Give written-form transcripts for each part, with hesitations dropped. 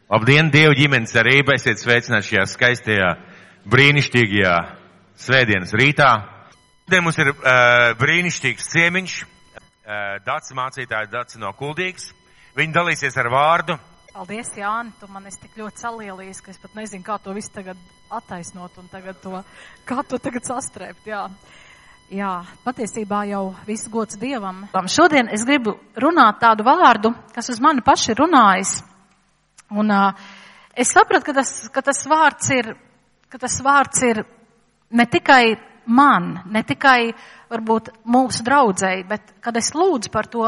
Labdien, Dievu ģimenes arība, esiet sveicināti šajā skaistajā, brīnišķīgajā svētdienas rītā. Šodien mums ir brīnišķīgs ciemiņš, Daci mācītāja Daci no Kuldīgas. Viņi dalīsies ar vārdu. Paldies, Jāni, tu man esi tik ļoti salielījis, ka es pat nezinu, kā to visu tagad attaisnot un kā to tagad sastrēpt, jā. Jā, patiesībā jau viss gods Dievam. Šodien es gribu runāt tādu vārdu, kas uz mani paši ir runājis. Un es sapratu, ka tas vārds ir ne tikai man, ne tikai varbūt mūsu draudzei, bet kad es lūdzu par to,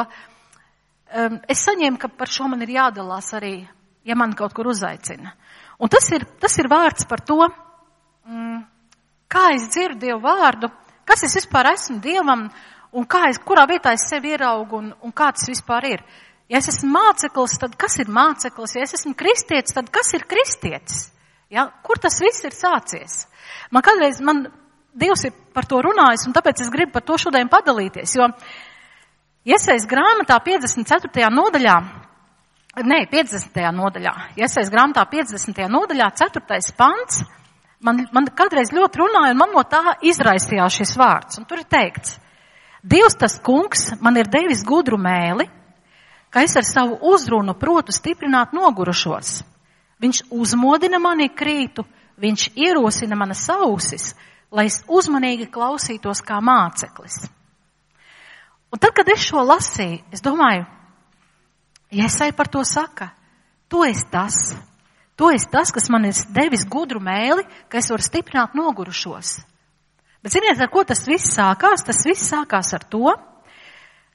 es saņēmu, ka par šo man ir jādalās arī, ja man kaut kur uzaicina. Un tas ir vārds par to, kā es dzirdu Dievu vārdu, kas es vispār esmu Dievam un kurā vietā es sevi ieraugu un kā tas vispār ir. Ja es esmu māceklis, tad kas ir māceklis? Ja es esmu kristietis, tad kas ir kristietis? Ja? Kur tas viss ir sācies? Man Dievs ir par to runājis, un tāpēc es gribu par to šodien padalīties, jo Iesajas grāmatā 50. nodaļā, Iesajas grāmatā 50. nodaļā, 4. pants, man kādreiz ļoti runāja, un man no tā izraisījās šis vārds, un tur ir teikts, Dievs tas kungs man ir devis gudru mēli, ka es ar savu uzrunu protu stiprināt nogurušos. Viņš uzmodina mani krītu, viņš ierosina manas ausis, lai es uzmanīgi klausītos kā māceklis. Un tad, kad es šo lasīju, es domāju, Iesaja par to saka, tu esi tas, kas man ir devis gudru mēli, ka es varu stiprināt nogurušos. Bet ziniet, ar ko tas viss sākās? Tas viss sākās ar to,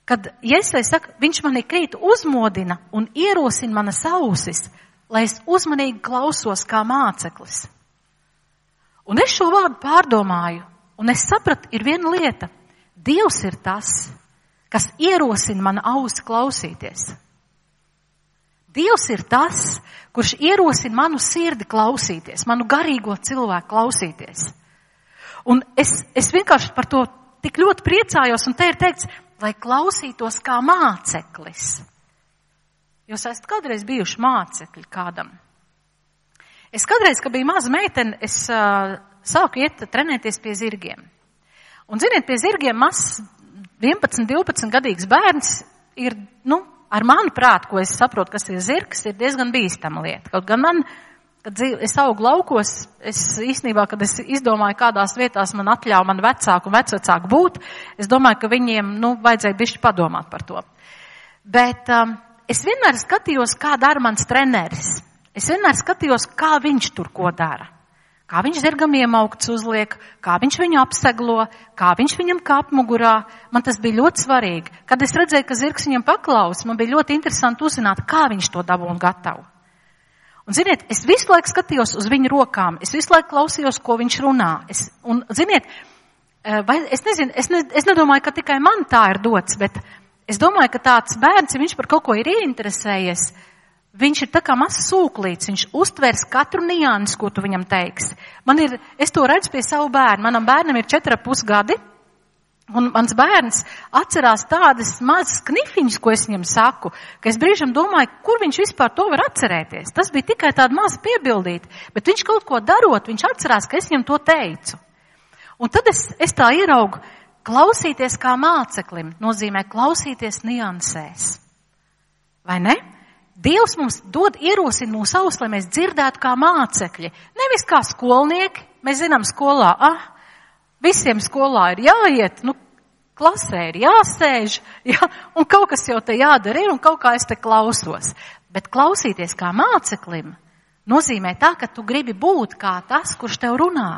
kad Iesaja saka, viņš mani krītu uzmodina un ierosina manas ausis, lai es uzmanīgi klausos kā māceklis. Un es šo vārdu pārdomāju, un es sapratu, ir viena lieta. Dievs ir tas, kas ierosina manu ausi klausīties. Dievs ir tas, kurš ierosina manu sirdi klausīties, manu garīgo cilvēku klausīties. Un es vienkārši par to tik ļoti priecājos, un te ir teikts, lai klausītos kā māceklis. Jūs esat kādreiz bijuši mācekļi kādam? Es kādreiz, kad biju maza meitene, es sāku iet trenēties pie zirgiem. Un ziniet, pie zirgiem mazs 11-12 gadīgs bērns ir, ar manu prātu, ko es saprotu, kas ir zirgs, ir diezgan bīstama lieta. Kaut gan man, kad es augu laukos, es īstenībā, kad es izdomāju, kādās vietās man atļauj man vecāku un vecvecāku būt, es domāju, ka viņiem, vajadzēja bišķi padomāt par to. Bet es vienmēr skatījos, kā dara mans treneris. Es vienmēr skatījos, kā viņš tur ko dara. Kā viņš zirgam iemaukts uzliek, kā viņš viņu apseglo, kā viņš viņam kāp mugurā. Man tas bija ļoti svarīgi. Kad es redzēju, ka zirgs viņam paklaus, man bija ļoti interesanti uzzināt, kā viņš to dabū un gatavu. Un ziniet, es visu laiku skatījos uz viņu rokām, es visu laiku klausījos, ko viņš runā. Es nedomāju, ka tikai man tā ir dots, bet es domāju, ka tāds bērns, ja viņš par kaut ko ir ieinteresējies, viņš ir tā kā mazs sūklīts, viņš uztvers katru niansi, ko tu viņam teiksi. Es to redzu pie savu bērnu. Manam bērnam ir 4,5 gadi, un mans bērns atcerās tādas mazas knifiņas, ko es viņam saku, ka es brīžam domāju, kur viņš vispār to var atcerēties. Tas bija tikai tāda maza piebildīta, bet viņš kaut ko darot, viņš atcerās, ka es viņam to teicu. Un tad es tā ieraugu, klausīties kā māceklim nozīmē klausīties niansēs. Vai ne? Dievs mums ierosina mūsu ausis, lai mēs dzirdētu kā mācekļi. Nevis kā skolnieki. Mēs zinām skolā, visiem skolā ir jāiet, klasē ir jāsēž, un kaut kas jau te jādara ir, un kaut kā es te klausos. Bet klausīties kā māceklim nozīmē tā, ka tu gribi būt kā tas, kurš tev runā.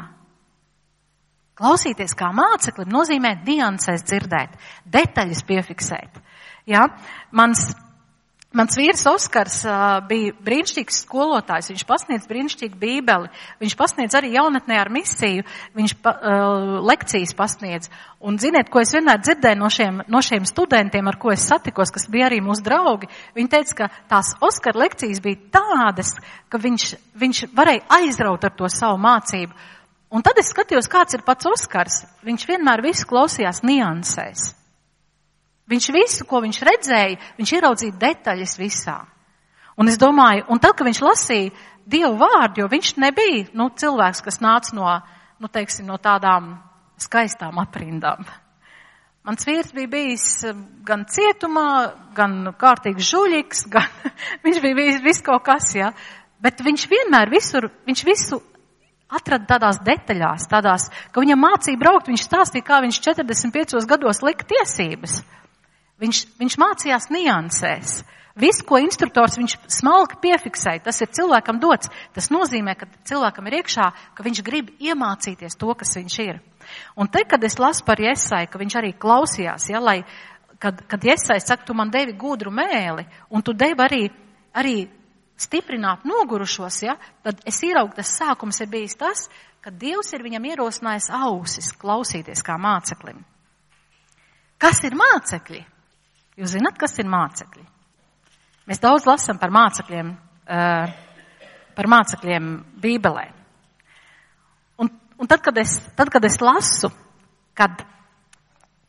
Klausīties kā māceklim nozīmē niansēs dzirdēt, detaļas piefiksēt. Ja? Mans vīrs Oskars bija brīnišķīgs skolotājs, viņš pasniedz brīnišķīgu bībeli, viņš pasniedz arī jaunatnē ar misiju, viņš lekcijas pasniedz. Un ziniet, ko es vienmēr dzirdēju no šiem studentiem, ar ko es satikos, kas bija arī mūsu draugi, viņi teica, ka tās Oskara lekcijas bija tādas, ka viņš varēja aizraut ar to savu mācību. Un tad es skatījos, kāds ir pats Oskars, viņš vienmēr visu klausījās niansēs. Viņš visu, ko viņš redzēja, viņš ieraudzīja detaļas visā. Un es domāju, un tad, kad viņš lasīja Dievu vārdu, jo viņš nebija, cilvēks, kas nāca no tādām skaistām aprindām. Mans vīrs bija bijis gan cietumā, gan kārtīgs žuļiks, viņš bija bijis viss kaut kas, ja. Bet viņš vienmēr viņš visu atrada tādās detaļās, ka viņam mācīja braukt, viņš stāstīja, kā viņš 45 gados lika tiesības. Viņš mācījās niansēs. Visu, ko instruktors viņš smalki piefiksēja, tas ir cilvēkam dots. Tas nozīmē, ka cilvēkam ir iekšā, ka viņš grib iemācīties to, kas viņš ir. Un te, kad es lasu par Jesai, ka viņš arī klausījās, ja, kad Jesai saka, tu man devi gudru mēli, un tu devi arī stiprināt nogurušos, ja, tad es ieraugu, tas sākums ir bijis tas, ka Dievs ir viņam ierosinājis ausis klausīties kā māceklim. Kas ir mācekļi? Jūs zināt, kas ir mācekļi? Mēs daudz lasam par mācekļiem Bībelē. Un tad, kad es lasu, kad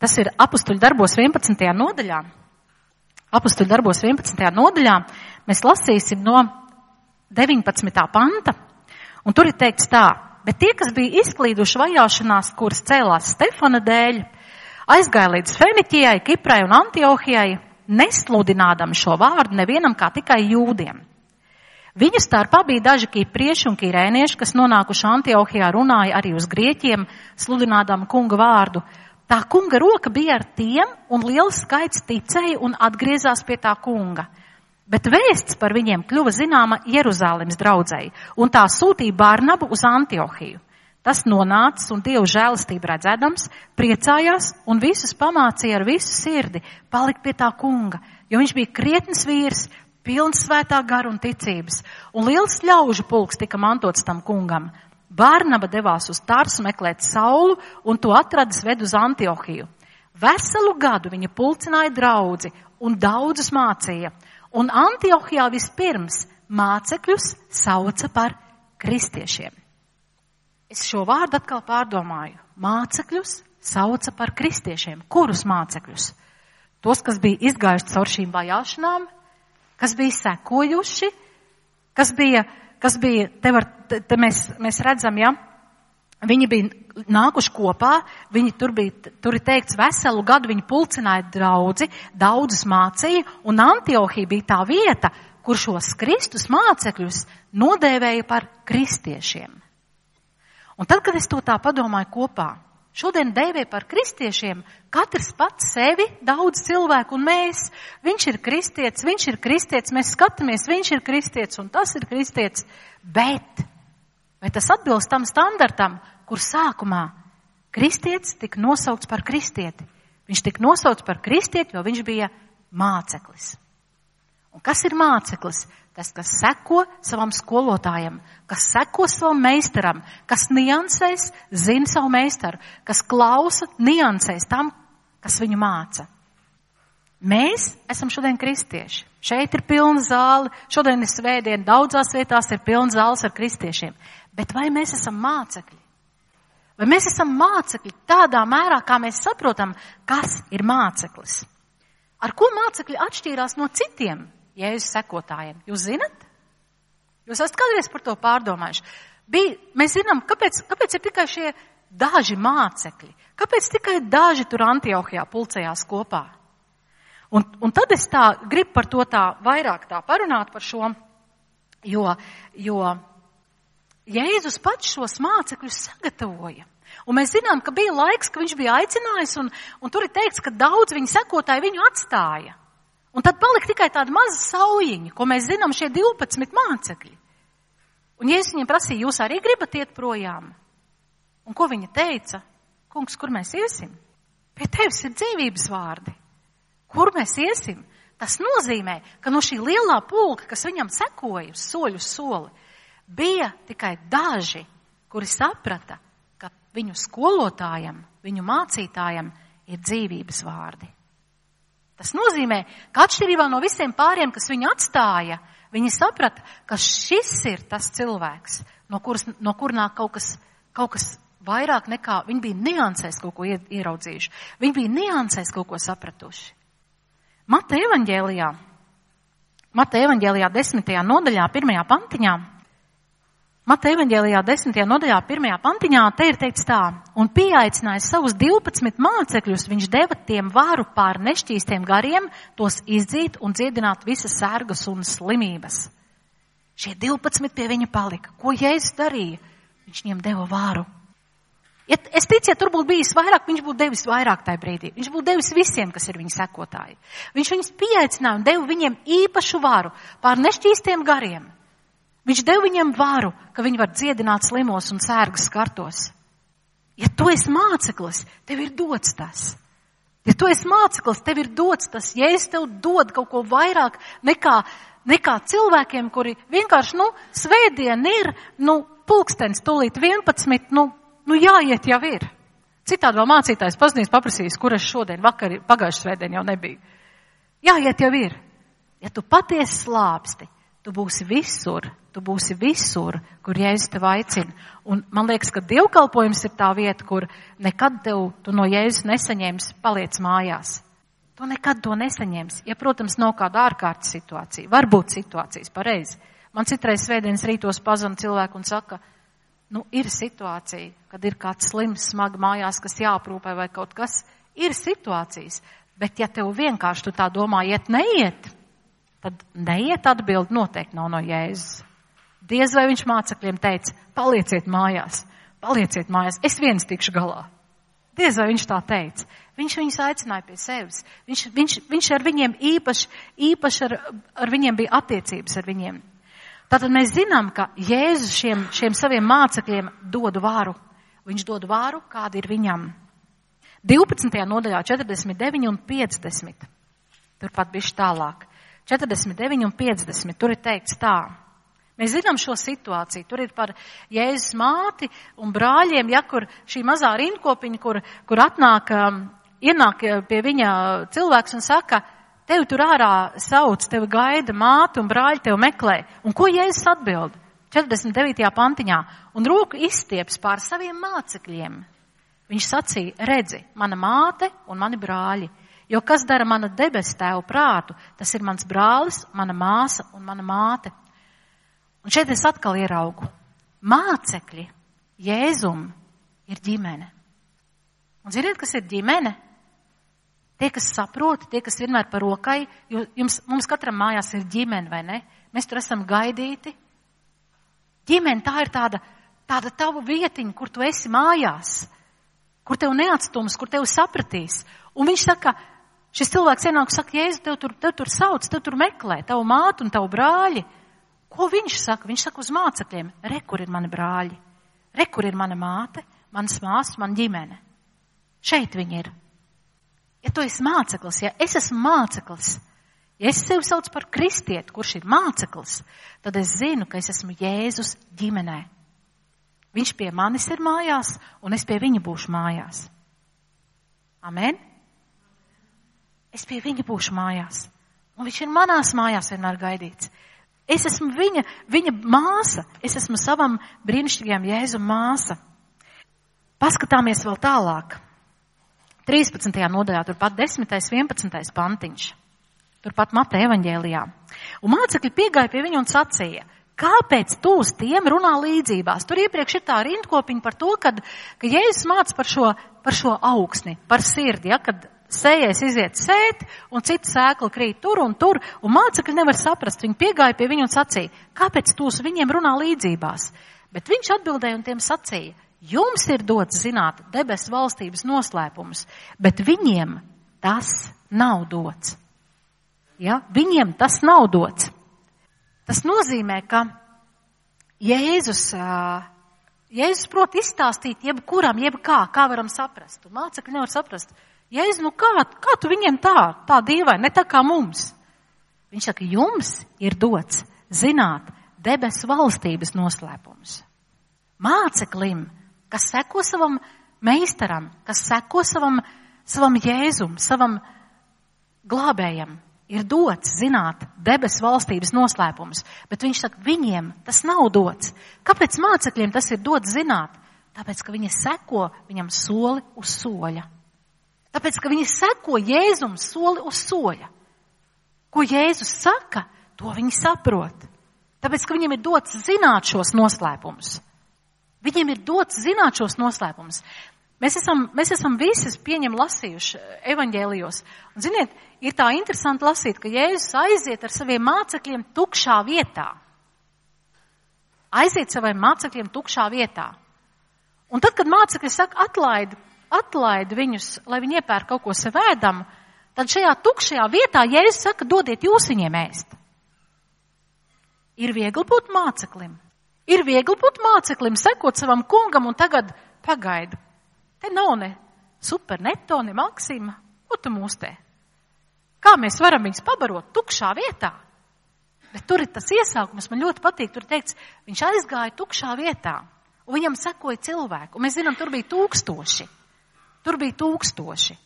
tas ir Apustuļu darbos 11. nodaļā, mēs lasīsim no 19. panta, un tur ir teikts tā, bet tie, kas bija izklīduši vajāšanās, kuras cēlās Stefana dēļ, aizgāja līdz Feniķijai, Kiprai un Antiohijai, nesludinādami šo vārdu nevienam kā tikai jūdiem. Viņu starpā bija daži kiprieši un kirēnieši, kas nonākuši Antiohijā runāja arī uz grieķiem, sludinādami kunga vārdu. Tā kunga roka bija ar tiem, un liels skaits ticēja un atgriezās pie tā kunga. Bet vēsts par viņiem kļuva zināma Jeruzālemes draudzei, un tā sūtīja Barnabu uz Antiohiju. Tas nonācis un Dievu žēlastību redzēdams, priecājās un visus pamācīja ar visu sirdi palikt pie tā kunga, jo viņš bija krietns vīrs, pilns svētā gara un ticības, un liels ļaužu pulks tika mantots tam kungam. Barnaba devās uz Tarsu meklēt Saulu, un to atradis ved uz Antiohiju. Veselu gadu viņa pulcināja draudzi un daudzus mācīja, un Antiohijā vispirms mācekļus sauca par kristiešiem. Es šo vārdu atkal pārdomāju. Mācekļus sauca par kristiešiem. Kurus mācekļus? Tos, kas bija izgājuši caur šīm vajāšanām, kas bija sekojuši, kas bija te mēs redzam, ja, viņi bija nākuši kopā, tur ir teikts veselu gadu, viņi pulcināja draudzi, daudzus mācīja, un Antiohija bija tā vieta, kur šos Kristus mācekļus nodēvēja par kristiešiem. Un tad, kad es to tā padomāju kopā, šodien dēvē par kristiešiem, katrs pats sevi, daudz cilvēku un mēs. Viņš ir kristietis, mēs skatāmies, viņš ir kristietis un tas ir kristietis. Bet, vai tas atbilst tam standartam, kur sākumā kristietis tika nosaukts par kristieti? Viņš tika nosaukts par kristieti, jo viņš bija māceklis. Un kas ir māceklis? Tas, kas seko savam skolotājam, kas seko savam meistaram, kas niansēs, zina savu meistaru, kas klausa, niansēs tam, kas viņu māca. Mēs esam šodien kristieši. Šeit ir pilna zāle, šodien ir svētdiena, daudzās vietās ir pilna zāles ar kristiešiem. Bet vai mēs esam mācekļi? Vai mēs esam mācekļi tādā mērā, kā mēs saprotam, kas ir māceklis? Ar ko mācekļi atšķīrās no citiem Jēzus sekotājiem? Jūs zinat? Jūs esat kādreiz par to pārdomājuši? Mēs zinām, kāpēc ir tikai šie daži mācekļi? Kāpēc tikai daži tur Antiohijā pulcējās kopā? Un tad es tā gribu par to tā vairāk tā parunāt par šo, jo Jēzus pats šos mācekļus sagatavoja. Un mēs zinām, ka bija laiks, ka viņš bija aicinājis, un tur ir teikts, ka daudz viņa sekotāji viņu atstāja. Un tad palika tikai tāda maza saujiņa, ko mēs zinām šie 12 mācekļi. Un Jēzus viņiem prasīja, jūs arī gribat iet projām? Un ko viņa teica? Kungs, kur mēs iesim? Pie tevis ir dzīvības vārdi. Kur mēs iesim? Tas nozīmē, ka no šī lielā pulka, kas viņam sekoja uz soļu soli, bija tikai daži, kuri saprata, ka viņu skolotājam, viņu mācītājam ir dzīvības vārdi. Tas nozīmē, ka atšķirībā no visiem pāriem, kas viņu atstāja, viņi saprata, ka šis ir tas cilvēks, no kur nāk kaut kas vairāk nekā, viņi bija niansēs kaut ko ieraudzījuši. Viņi bija niansēs kaut ko sapratuši. Mateja evaņģēlijā Mateja evaņģēlijā 10. nodaļā, 1. pantiņā. Mateja evaņģēlijā 10. nodaļā, 1. pantiņā, te ir teikts tā: un pieaicinājis savus 12 mācekļus, viņš deva tiem varu pār nešķīstiem gariem, tos izdzīt un dziedināt visas sērgas un slimības. Šie 12 pie viņa palika. Ko Jēzus darīja? Viņš viņiem deva varu. Es ticu, ja tur būtu bijis vairāk, viņš būtu devis vairāk tajā brīdī. Viņš būtu devis visiem, kas ir viņa sekotāji. Viņš viņus pieaicināja un deva viņiem īpašu varu pār nešķīstiem gariem. Viņš deva viņiem varu, ka viņi var dziedināt slimos un sērgas skartos. Ja tu esi māceklis, tev ir dots tas. Ja tu esi māceklis, tev ir dots tas. Ja es tev dod kaut ko vairāk nekā cilvēkiem, kuri vienkārši, svētdien ir, pulkstens tūlīt 11, jāiet jau ir. Citādi vēl mācītājs pazinīs paprasīs, kur es šodien, pagājušajā svētdien jau nebija. Jāiet jau ir. Ja tu patiesi slāpsti, tu būsi visur, kur Jēzus tev aicina. Un man liekas, ka dievkalpojums ir tā vieta, kur nekad tu no Jēzus nesaņēmis, paliec mājās. Tu nekad to nesaņemsi. Ja, protams, nav kāda ārkārtas situācija. Varbūt situācijas, pareizi. Man citreiz svētdienas rītos pazana cilvēku un saka, ir situācija, kad ir kāds slims, smagi mājās, kas jāaprūpē vai kaut kas. Ir situācijas, bet ja tev vienkārši tu tā domā, neiet, tad neiet atbildi noteikti nav no Jēzus. Diez vai viņš mācekļiem teica, palieciet mājās, es viens tikšu galā. Diez vai viņš tā teica. Viņš viņus aicināja pie sevis. Viņš ar viņiem īpaši ar viņiem bija attiecības ar viņiem. Tātad mēs zinām, ka Jēzus šiem saviem mācekļiem dod varu. Viņš dod varu, kāda ir viņam. 12. nodaļā 49 un 50. Turpat bišķi tālāk. 49 un 50. Tur ir teikts tā. Mēs zinām šo situāciju. Tur ir par Jēzus māti un brāļiem, kur šī mazā rindkopiņa, kur ienāk pie viņa cilvēks un saka, tevi tur ārā sauc, tevi gaida māte un brāļi tevi meklē. Un ko Jēzus atbild? 49. pantiņā. Un roku izstieps pār saviem mācekļiem. Viņš sacīja, redzi, mana māte un mani brāļi. Jo kas dara mana debesu tēvu prātu, tas ir mans brālis, mana māsa un mana māte. Un šeit es atkal ieraugu. Mācekļi Jēzum ir ģimene. Un ziniet, kas ir ģimene? Tie, kas saprot, tie, kas vienmēr par rokai, jo mums katram mājās ir ģimene, vai ne? Mēs tur esam gaidīti. Ģimene, tā ir tāda tava vietiņa, kur tu esi mājās, kur tev neatstums, kur tev sapratīs. Un viņš saka, šis cilvēks ienāk, saka, Jēzu, tev tur sauc, tev tur meklē, tavu mātu un tavu brāļi. Ko viņš saka? Viņš saka uz mācekļiem, re, kur ir mani brāļi, re, kur ir mana māte, manas māsas, mana ģimene. Šeit viņi ir. Ja tu esi māceklis, ja es esmu māceklis, ja es sevi saucu par kristieti, kurš ir māceklis, tad es zinu, ka es esmu Jēzus ģimenē. Viņš pie manis ir mājās, un es pie viņa būšu mājās. Amen? Es pie viņa būšu mājās, un viņš ir manās mājās vienmēr gaidīts. Es esmu viņa māsa, es esmu savam brīnišķīgajam Jēzum māsa. Paskatāmies vēl tālāk. 13. nodaļā, turpat 10. 11. pantiņš. Turpat Mateja evaņģēlijā. Un mācekļi piegāja pie viņu un sacīja, kāpēc tu uz tiem runā līdzībās? Tur iepriekš ir tā rindkopiņa par to, ka Jēzus māca par šo augsni, par sirdi, kad sējais iziet sēt, un cita sēkla krīt tur, un mācekļi nevar saprast. Viņi piegāja pie viņu un sacīja, kāpēc tu uz viņiem runā līdzībās? Bet viņš atbildēja un tiem sacīja, jums ir dots zināt debesu valstības noslēpumus, bet viņiem tas nav dots. Ja? Viņiem tas nav dots. Tas nozīmē, ka Jēzus prot izstāstīt jebkuram, kā varam saprast. Un mācekļi nevar saprast. Jēzus, kā tu viņiem tā dīvaini, ne tā kā mums? Viņš saka, jums ir dots zināt debesu valstības noslēpumus. Māceklim, kas seko savam meistaram, kas seko savam Jēzum, savam glābējam, ir dots zināt debesu valstības noslēpumus. Bet viņš saka, viņiem tas nav dots. Kāpēc mācekļiem tas ir dots zināt? Tāpēc, ka viņi seko viņam soli uz soļa. Tāpēc, ka viņi seko Jēzum soli uz soļa. Ko Jēzus saka, To viņi saprot. Tāpēc, ka viņiem ir dots zināt šos noslēpumus. Viņiem ir dots zināt šos noslēpumus. Mēs esam visi lasījuši evaņģēlijos. Un, ziniet, ir tā interesanti lasīt, ka Jēzus aiziet ar saviem mācekļiem tukšā vietā. Aiziet saviem mācekļiem tukšā vietā. Un tad, kad mācekļi saka, atlaid viņus, lai viņi iepērk kaut ko sev ēdamu, tad šajā tukšajā vietā Jēzus saka, dodiet jūs viņiem ēst. Ir viegli būt māceklim. Ir viegli būt māceklim, sekot savam kungam un tagad pagaidu. Te nav ne super neto, ne maksima. Ko tu mūs te? Kā mēs varam viņus pabarot tukšā vietā? Bet tur ir tas iesākums, man ļoti patīk, tur teikts, viņš aizgāja tukšā vietā, un viņam sekoja cilvēku. Un mēs zinām, tur bija 1000. Tur bija 1000.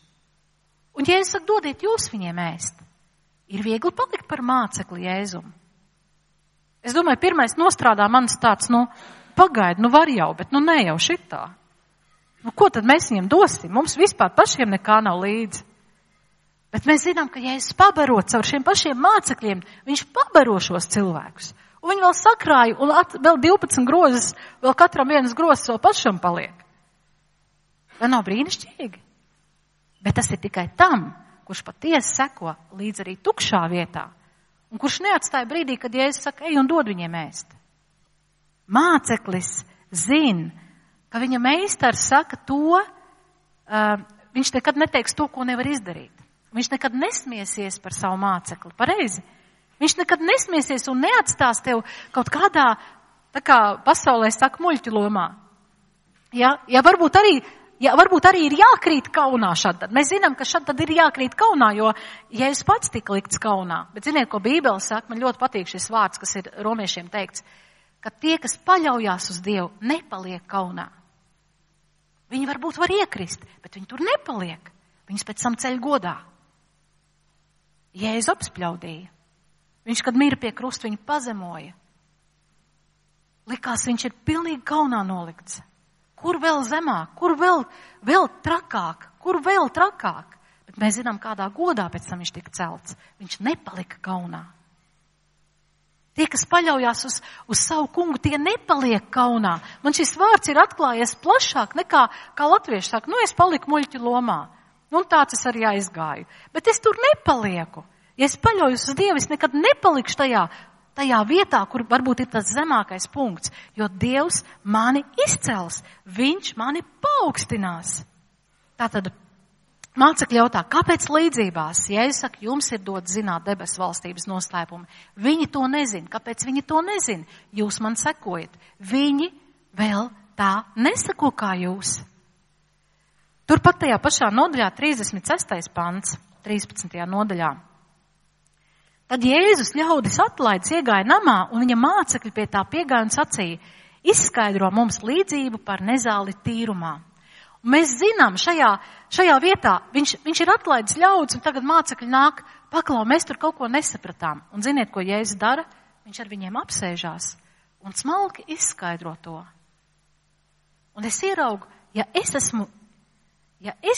Un Jēzus saka, dodiet jūs viņiem ēst. Ir viegli palikt par mācekli Jēzumu. Es domāju, pirmais nostrādā manis tāds, pagaidi, var jau, bet ne jau šitā. Ko tad mēs viņiem dosim? Mums vispār pašiem nekā nav līdzi. Bet mēs zinām, ka Jēzus pabaro caur šiem pašiem mācekļiem, viņš pabaro šos cilvēkus. Un viņi vēl sakrāja, un vēl 12 grozes, vēl katram vienas grozes vēl pašam paliek. Vai nav brīnišķīgi? Bet tas ir tikai tam, kurš patiesi seko līdz arī tukšā vietā. Un kurš neatstāja brīdī, kad Jēzus saka, ej un dod viņiem ēst. Māceklis zina, ka viņa meistars saka to, viņš nekad neteiks to, ko nevar izdarīt. Viņš nekad nesmiesies par savu mācekli, pareizi. Viņš nekad nesmiesies un neatstās tev kaut kādā, tā kā pasaulē saka, muļķu lomā. Ja varbūt arī ir jākrīt kaunā šad. Mēs zinām, ka šad tad ir jākrīt kaunā, jo Jēzus pats tika likts kaunā. Bet ziniet, ko Bībele saka, man ļoti patīk šis vārds, kas ir romiešiem teikts, ka tie, kas paļaujās uz Dievu, nepaliek kaunā. Viņi varbūt var iekrist, bet viņi tur nepaliek. Viņus pēc tam ceļ godā. Jēzus apspļaudīja. Viņš, kad mīra pie krusta, viņu pazemoja. Likās, viņš ir pilnīgi kaunā nolikts. Kur vēl zemāk, kur vēl trakāk, kur vēl trakāk. Bet mēs zinām, kādā godā pēc tam viņš tika celts. Viņš nepalika kaunā. Tie, kas paļaujās uz savu kungu, tie nepaliek kaunā. Man šis vārds ir atklājies plašāk nekā latvieši saka, es paliku muļķu lomā. Un tāds es arī aizgāju. Bet es tur nepalieku. Ja es paļaujos uz Dievu, es nekad nepalikšu tajā vietā, kur varbūt ir tas zemākais punkts, jo Dievs mani izcels, viņš mani paaugstinās. Tātad mācekļi jautā, kāpēc līdzībās? Jēzus saka, jums ir dots zināt debesu valstības noslēpumu. Viņi to nezina. Kāpēc viņi to nezina? Jūs man sekojat. Viņi vēl tā nesako kā jūs. Turpat tajā pašā nodaļā 36. pants, 13. nodaļā. Tad Jēzus ļaudis atlaidis iegāja namā, un viņa mācekļi pie tā piegāja un sacīja, izskaidro mums līdzību par nezāli tīrumā. Un mēs zinām, šajā vietā viņš ir atlaidis ļaudis, un tagad mācekļi nāk, paklau, mēs tur kaut ko nesapratām. Un ziniet, ko Jēzus dara? Viņš ar viņiem apsēžās un smalki izskaidro to. Un es ieraugu, ja es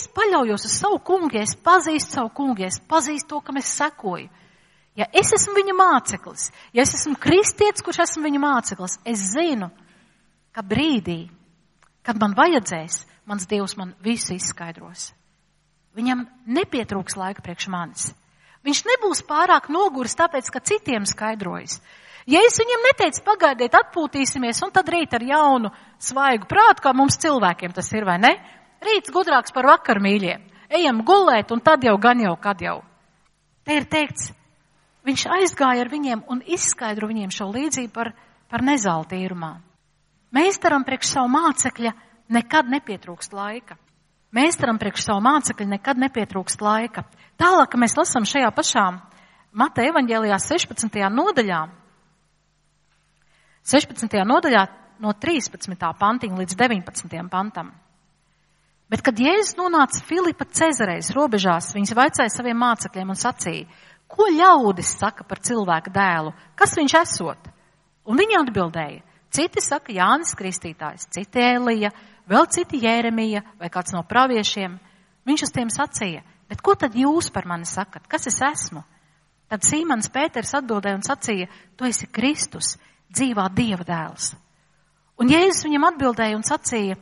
paļaujos uz savu kungu, ja es pazīstu savu kungu, ja es pazīstu to, kam es sekoju, ja es esmu viņa māceklis, ja es esmu kristietis, kurš esmu viņa māceklis, es zinu, ka brīdī, kad man vajadzēs, mans Dievs man visu izskaidros. Viņam nepietrūks laika priekš manis. Viņš nebūs pārāk noguris, tāpēc, ka citiem skaidrojas. Ja es viņam neteicu, pagaidiet, atpūtīsimies, un tad rīt ar jaunu, svaigu prātu, kā mums cilvēkiem tas ir, vai ne? Rīts gudrāks par vakar, mīļie. Ejam gulēt, un tad jau gan jau, kad jau. Te ir teikts, viņš aizgāja ar viņiem un izskaidro viņiem šo līdzību par nezāli tīrumā. Meistaram priekš savu mācekļa nekad nepietrūkst laika. Meistaram priekš savu mācekļa nekad nepietrūkst laika. Tālāk, ka mēs lasām šajā pašā Mateja evaņģēlijā 16. nodaļā no 13. pantiņa līdz 19. pantam. Bet, kad Jēzus nonāca Filipa Cezarejas robežās, viņš vaicāja saviem mācekļiem un sacīja, ko ļaudis saka par cilvēka dēlu? Kas viņš esot? Un viņi atbildēja, citi saka Jānis Kristītājs, citi Elija, vēl citi Jēremija vai kāds no praviešiem. Viņš uz tiem sacīja, bet ko tad jūs par mani sakat? Kas es esmu? Tad Sīmons Pēters atbildēja un sacīja, tu esi Kristus, dzīvā Dieva dēls. Un Jēzus viņam atbildēja un sacīja,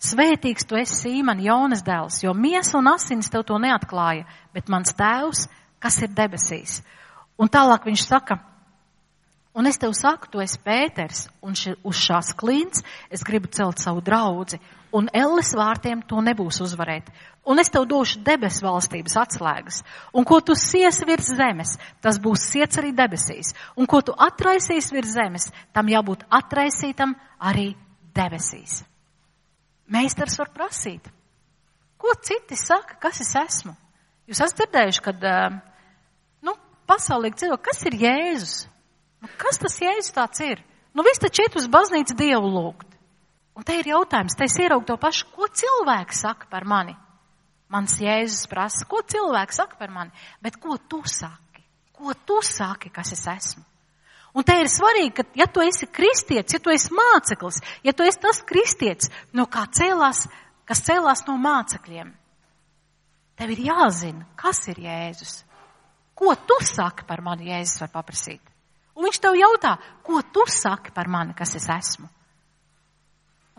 svētīgs tu esi Sīmon, Jonas dēls, jo miesa un asinis tev to neatklāja, bet mans tēvs, kas ir debesīs. Un tālāk viņš saka, un es tev saku, tu esi Pēters, un uz šās klints es gribu celt savu draudzi, un elles vārtiem to nebūs uzvarēt. Un es tev došu debesu valstības atslēgas. Un ko tu siesi virs zemes, tas būs siets arī debesīs. Un ko tu atraisīsi virs zemes, tam jābūt atraisītam arī debesīs. Meistars var prasīt, ko citi saka, kas es esmu? Jūs esat dzirdējuši, kad, pasaulīgi cilvēki, kas ir Jēzus? Kas tas Jēzus tāds ir? Viss taču iet uz baznīcu Dievu lūgt. Un te ir jautājums, te es ieraugu to pašu, ko cilvēki saka par mani? Mans Jēzus prasa, ko cilvēki saka par mani? Bet ko tu saki? Ko tu saki, kas es esmu? Un te ir svarīgi, ka ja tu esi kristietis, ja tu esi māceklis, ja tu esi tas kristietis, kas cēlās no mācekļiem, tev ir jāzina, kas ir Jēzus. Ko tu saki par mani, Jēzus var paprasīt? Un viņš tev jautā, ko tu saki par mani, kas es esmu?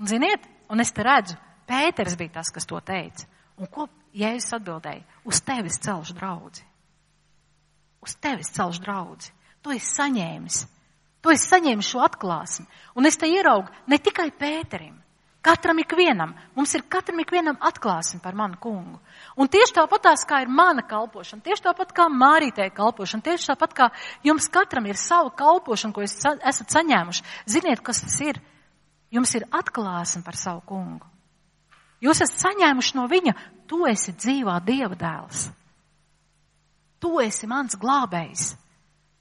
Un ziniet, un es te redzu, Pēters bija tas, kas to teica. Un ko Jēzus atbildēja? Uz tevis celšu draudzi. Uz tevis celšu draudzi. Tu esi saņēmis. Tu esi saņēmis šo atklāsmi. Un es te ieraugu ne tikai Pēterim. Katram ikvienam. Mums ir katram ikvienam atklāsmi par manu kungu. Un tieši tāpatās, kā ir mana kalpošana, tieši tāpat kā Mārītei kalpošana, tieši tāpat kā jums katram ir sava kalpošana, ko esat saņēmuši. Ziniet, kas tas ir? Jums ir atklāsme par savu kungu. Jūs esat saņēmuši no viņa, tu esi dzīvā Dieva dēls. Tu esi mans glābējs.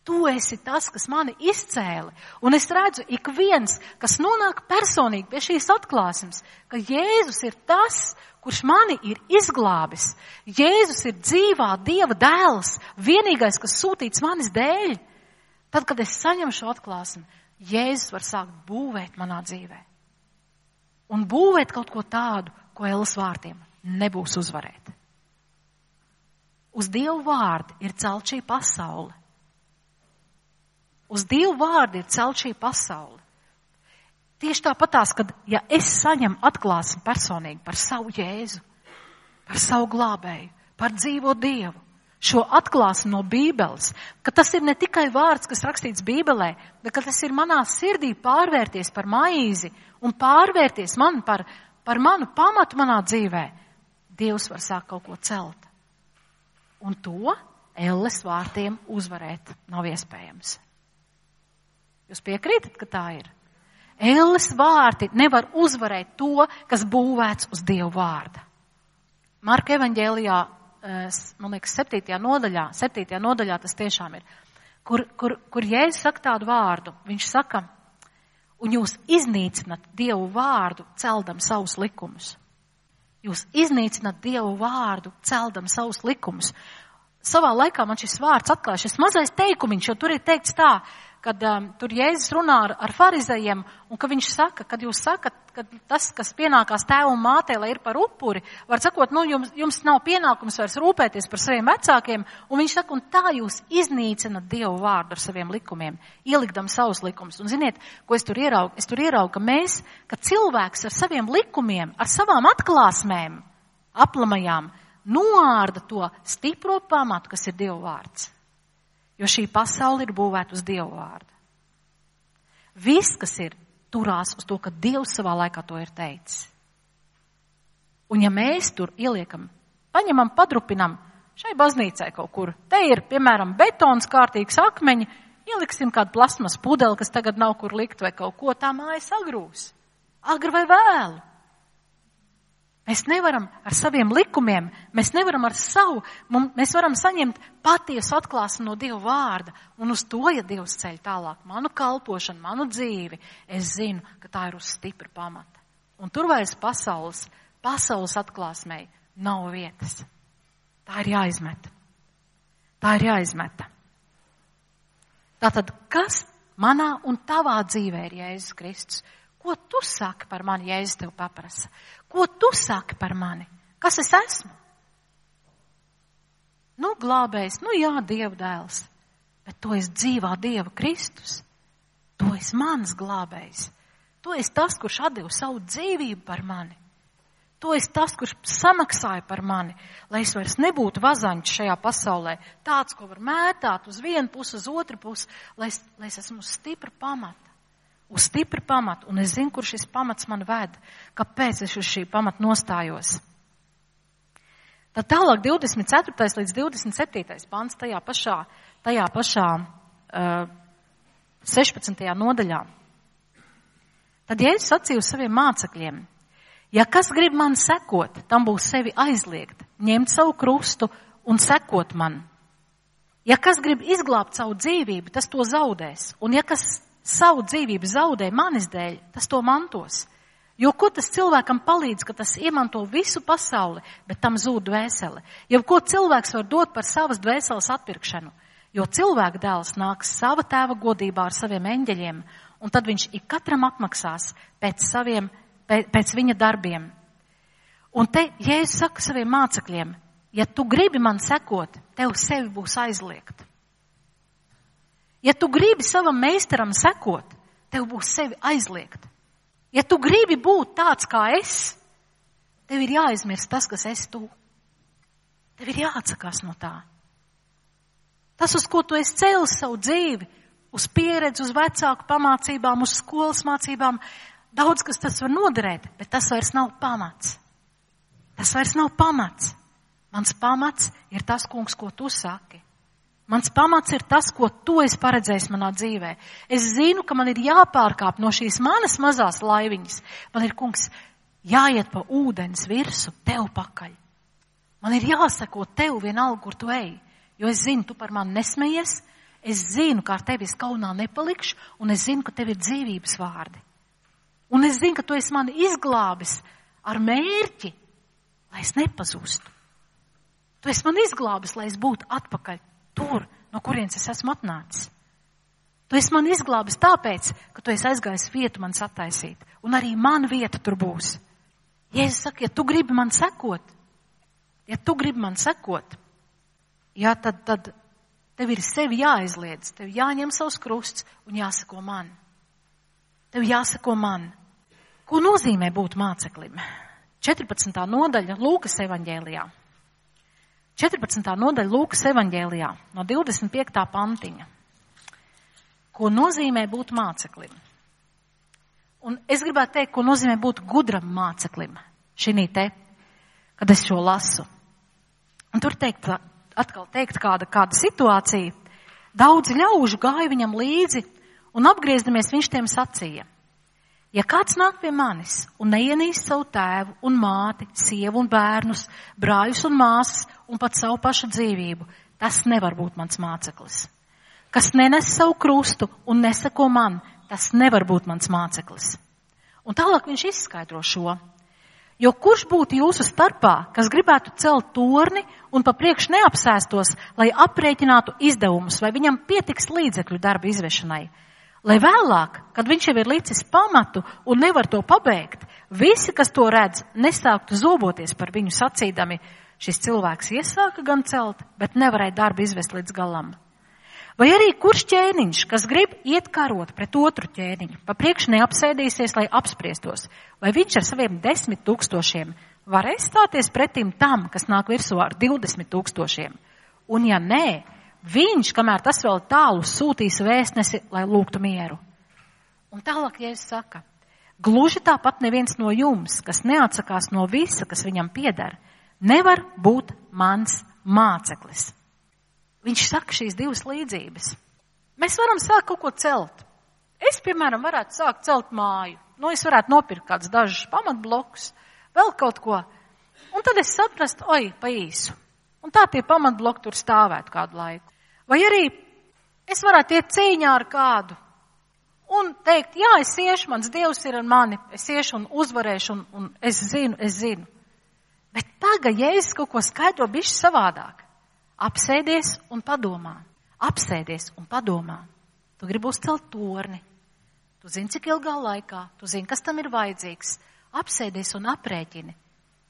Tu esi tas, kas mani izcēla. Un es redzu, ik viens, kas nonāk personīgi pie šīs atklāsmes, ka Jēzus ir tas, kurš mani ir izglābis. Jēzus ir dzīvā Dieva dēls, vienīgais, kas sūtīts manis dēļ. Tad, kad es saņemu šo atklāsmi, Jēzus var sākt būvēt manā dzīvē. Un būvēt kaut ko tādu, ko elles vārtiem nebūs uzvarēt. Uz Dievu vārdu ir celt šī pasaule. Uz Dievu vārdu ir celt šī pasaule. Tieši tāpatās, kad ja es saņemu atklāsmi personīgi par savu Jēzu, par savu glābēju, par dzīvo Dievu, šo atklāsmi no Bībeles, ka tas ir ne tikai vārds, kas rakstīts Bībelē, bet ka tas ir manā sirdī pārvērties par maizi un pārvērties man par manu pamatu manā dzīvē, Dievs var sākt kaut ko celt. Un to elles vārtiem uzvarēt nav iespējams. Jūs piekrītat, ka tā ir? Elles vārti nevar uzvarēt to, kas būvēts uz Dievu vārda. Marka evaņģēlijā, man liekas, 7. nodaļā tas tiešām ir, kur Jēzus saka tādu vārdu. Viņš saka, un jūs iznīcinat Dievu vārdu, celdam savus likumus. Jūs iznīcinat Dievu vārdu, celdam savus likumus. Savā laikā man šis vārds atklāja, šis mazais teikumiņš, jo tur ir teikts tā, kad tur Jēzus runā ar farizejiem, un ka viņš saka, kad jūs sakat, ka tas, kas pienākās tēvu un mātei, lai ir par upuri, var sakot, jums nav pienākums vairs rūpēties par saviem vecākiem, un viņš saka, un tā jūs iznīcinat Dievu vārdu ar saviem likumiem, ielikdam savus likumus. Un ziniet, ko es tur ieraugu? Es tur ieraugu, ka cilvēks ar saviem likumiem, ar savām atklāsmēm, aplamajām, noārda to stipro pamatu, kas ir Dieva vārds. Jo šī pasaule ir būvēta uz Dievu vārdu. Viss, kas ir, turās uz to, ka Dievs savā laikā to ir teicis. Un ja mēs tur ieliekam, paņemam, padrupinam šai baznīcai kaut kur, te ir, piemēram, betons, kārtīgs akmeņi, ieliksim kādu plasmas pudeli, kas tagad nav kur likt vai kaut ko, tā māja sagrūs. Agri vai vēlu. Mēs nevaram ar saviem likumiem, mēs nevaram ar savu, mēs varam saņemt patiesu atklāsmi no Dieva vārda. Un uz to, ja Dievs ceļ tālāk manu kalpošanu, manu dzīvi, es zinu, ka tā ir uz stipra pamata. Un tur vairs pasaules atklāsmei nav vietas. Tā ir jāizmeta. Tā ir jāizmeta. Tātad, kas manā un tavā dzīvē ir Jēzus Kristus? Ko tu saki par mani, Jēzus tev paprasa? Ko tu saki par mani? Kas es esmu? Glābējs, jā, Dieva dēls. bet tu esi dzīvā Dieva Kristus. Tu esi mans glābējs. Tu esi tas, kurš atdeva savu dzīvību par mani. Tu esi tas, kurš samaksāja par mani, lai es vairs nebūtu vazaņš šajā pasaulē. Tāds, ko var mētāt uz vienu pusi, uz otru pusi, lai es esmu uz stipra pamata. Uz stipra pamata. Un es zinu, kur šis pamats man ved. Kāpēc es uz šī pamata nostājos. Tad tālāk 24. līdz 27. pants tajā pašā 16. nodaļā. Tad Jēzus sacīja uz saviem mācekļiem: ja kas grib man sekot, tam būs sevi aizliegt, ņemt savu krustu un sekot man. Ja kas grib izglābt savu dzīvību, tas to zaudēs. Un ja kas savu dzīvību zaudē manis dēļ, tas to mantos. Jo ko tas cilvēkam palīdz, ka tas iemanto visu pasauli, bet tam zūd dvēsele? Jo ko cilvēks var dot par savas dvēseles atpirkšanu? Jo cilvēka dēls nāks sava tēva godībā ar saviem eņģeļiem, un tad viņš ik katram apmaksās pēc viņa darbiem. Un te Jēzus saka saviem mācekļiem: ja tu gribi man sekot, tev sevi būs aizliegt. Ja tu gribi savam meistaram sekot, tev būs sevi aizliegt. Ja tu gribi būt tāds kā es, tev ir jāaizmirst tas, kas esi tu. Tev ir jāatsakās no tā. Tas, uz ko tu esi cēlis savu dzīvi, uz pieredzi, uz vecāku pamācībām, uz skolas mācībām, daudz kas tas var noderēt, bet tas vairs nav pamats. Tas vairs nav pamats. Mans pamats ir tas, kungs, ko tu saki. Mans pamats ir tas, ko tu esi paredzējis manā dzīvē. Es zinu, ka man ir jāpārkāp no šīs manas mazās laiviņas. Man ir, kungs, jāiet pa ūdens virsu tev pakaļ. Man ir jāseko tev vienalga, kur tu ej. Jo es zinu, tu par mani nesmejies. Es zinu, ka ar tevi es kaunā nepalikšu. Un es zinu, ka tev ir dzīvības vārdi. Un es zinu, ka tu esi mani izglābis ar mērķi, lai es nepazūstu. Tu esi mani izglābis, lai es būtu atpakaļ tur, no kurienes es esmu atnācis. Tu esi mani izglābis tāpēc, ka tu esi aizgājis vietu man sataisīt. Un arī man vieta tur būs. Jēzus saka, ja tu gribi man sekot, jā, tad tev ir sevi jāaizliedz. Tev jāņem savs krusts un jāseko man. Tev jāseko man. Ko nozīmē būt māceklim? 14. nodaļa Lūkas evaņģēlijā. 14. nodaļa Lūkas evaņģēlijā no 25. pantiņa. Ko nozīmē būt māceklim? Un es gribētu teikt, ko nozīmē būt gudram māceklim šinī te, kad es šo lasu. Un tur atkal teikt kāda situācija. Daudzi ļaužu gāja viņam līdzi un apgriezdamies viņš tiem sacīja: ja kāds nāk pie manis un neienīst savu tēvu un māti, sievu un bērnus, brāļus un māsas un pat savu pašu dzīvību, tas nevar būt mans māceklis. Kas nenes savu krustu un neseko man, tas nevar būt mans māceklis. Un tālāk viņš izskaidro šo. Jo kurš būtu jūsu starpā, kas gribētu celt torni un pa priekš neapsēstos, lai aprēķinātu izdevumus, vai viņam pietiks līdzekļu darba izvešanai? Lai vēlāk, kad viņš jau ir licis pamatu un nevar to pabeigt, visi, kas to redz, nesāktu zoboties par viņu sacīdami: šis cilvēks iesāka gan celt, bet nevarēja darbu izvest līdz galam. Vai arī kurš ķēniņš, kas grib iet karot pret otru ķēniņu, pa priekš neapsēdīsies, lai apspriestos, vai viņš ar saviem 10 000 varēs stāties pretim tam, kas nāk virsū ar 20 000? Un ja nē, viņš, kamēr tas vēl tālu, sūtīs vēstnesi, lai lūgtu mieru. Un tālāk Jēzus saka: gluži tāpat neviens no jums, kas neatsakās no visa, kas viņam pieder, nevar būt mans māceklis. Viņš saka šīs divas līdzības. Mēs varam sākt kaut ko celt. Es, piemēram, varētu sākt celt māju. Es varētu nopirkt kādus dažus pamatblokus, vēl kaut ko. Un tad es saprastu, pa īsu. Un tā tie pamatbloki tur stāvētu kādu laiku. Vai arī es varētu iet cīņā ar kādu un teikt, jā, es iešu, mans Dievs ir ar mani, es iešu un uzvarēšu un es zinu. Bet tagad, ja es kaut ko skaidro bišķi savādāk, apsēdies un padomā. Tu gribi uzcelt torni. Tu zini, cik ilgā laikā, tu zini, kas tam ir vajadzīgs. Apsēdies un aprēķini.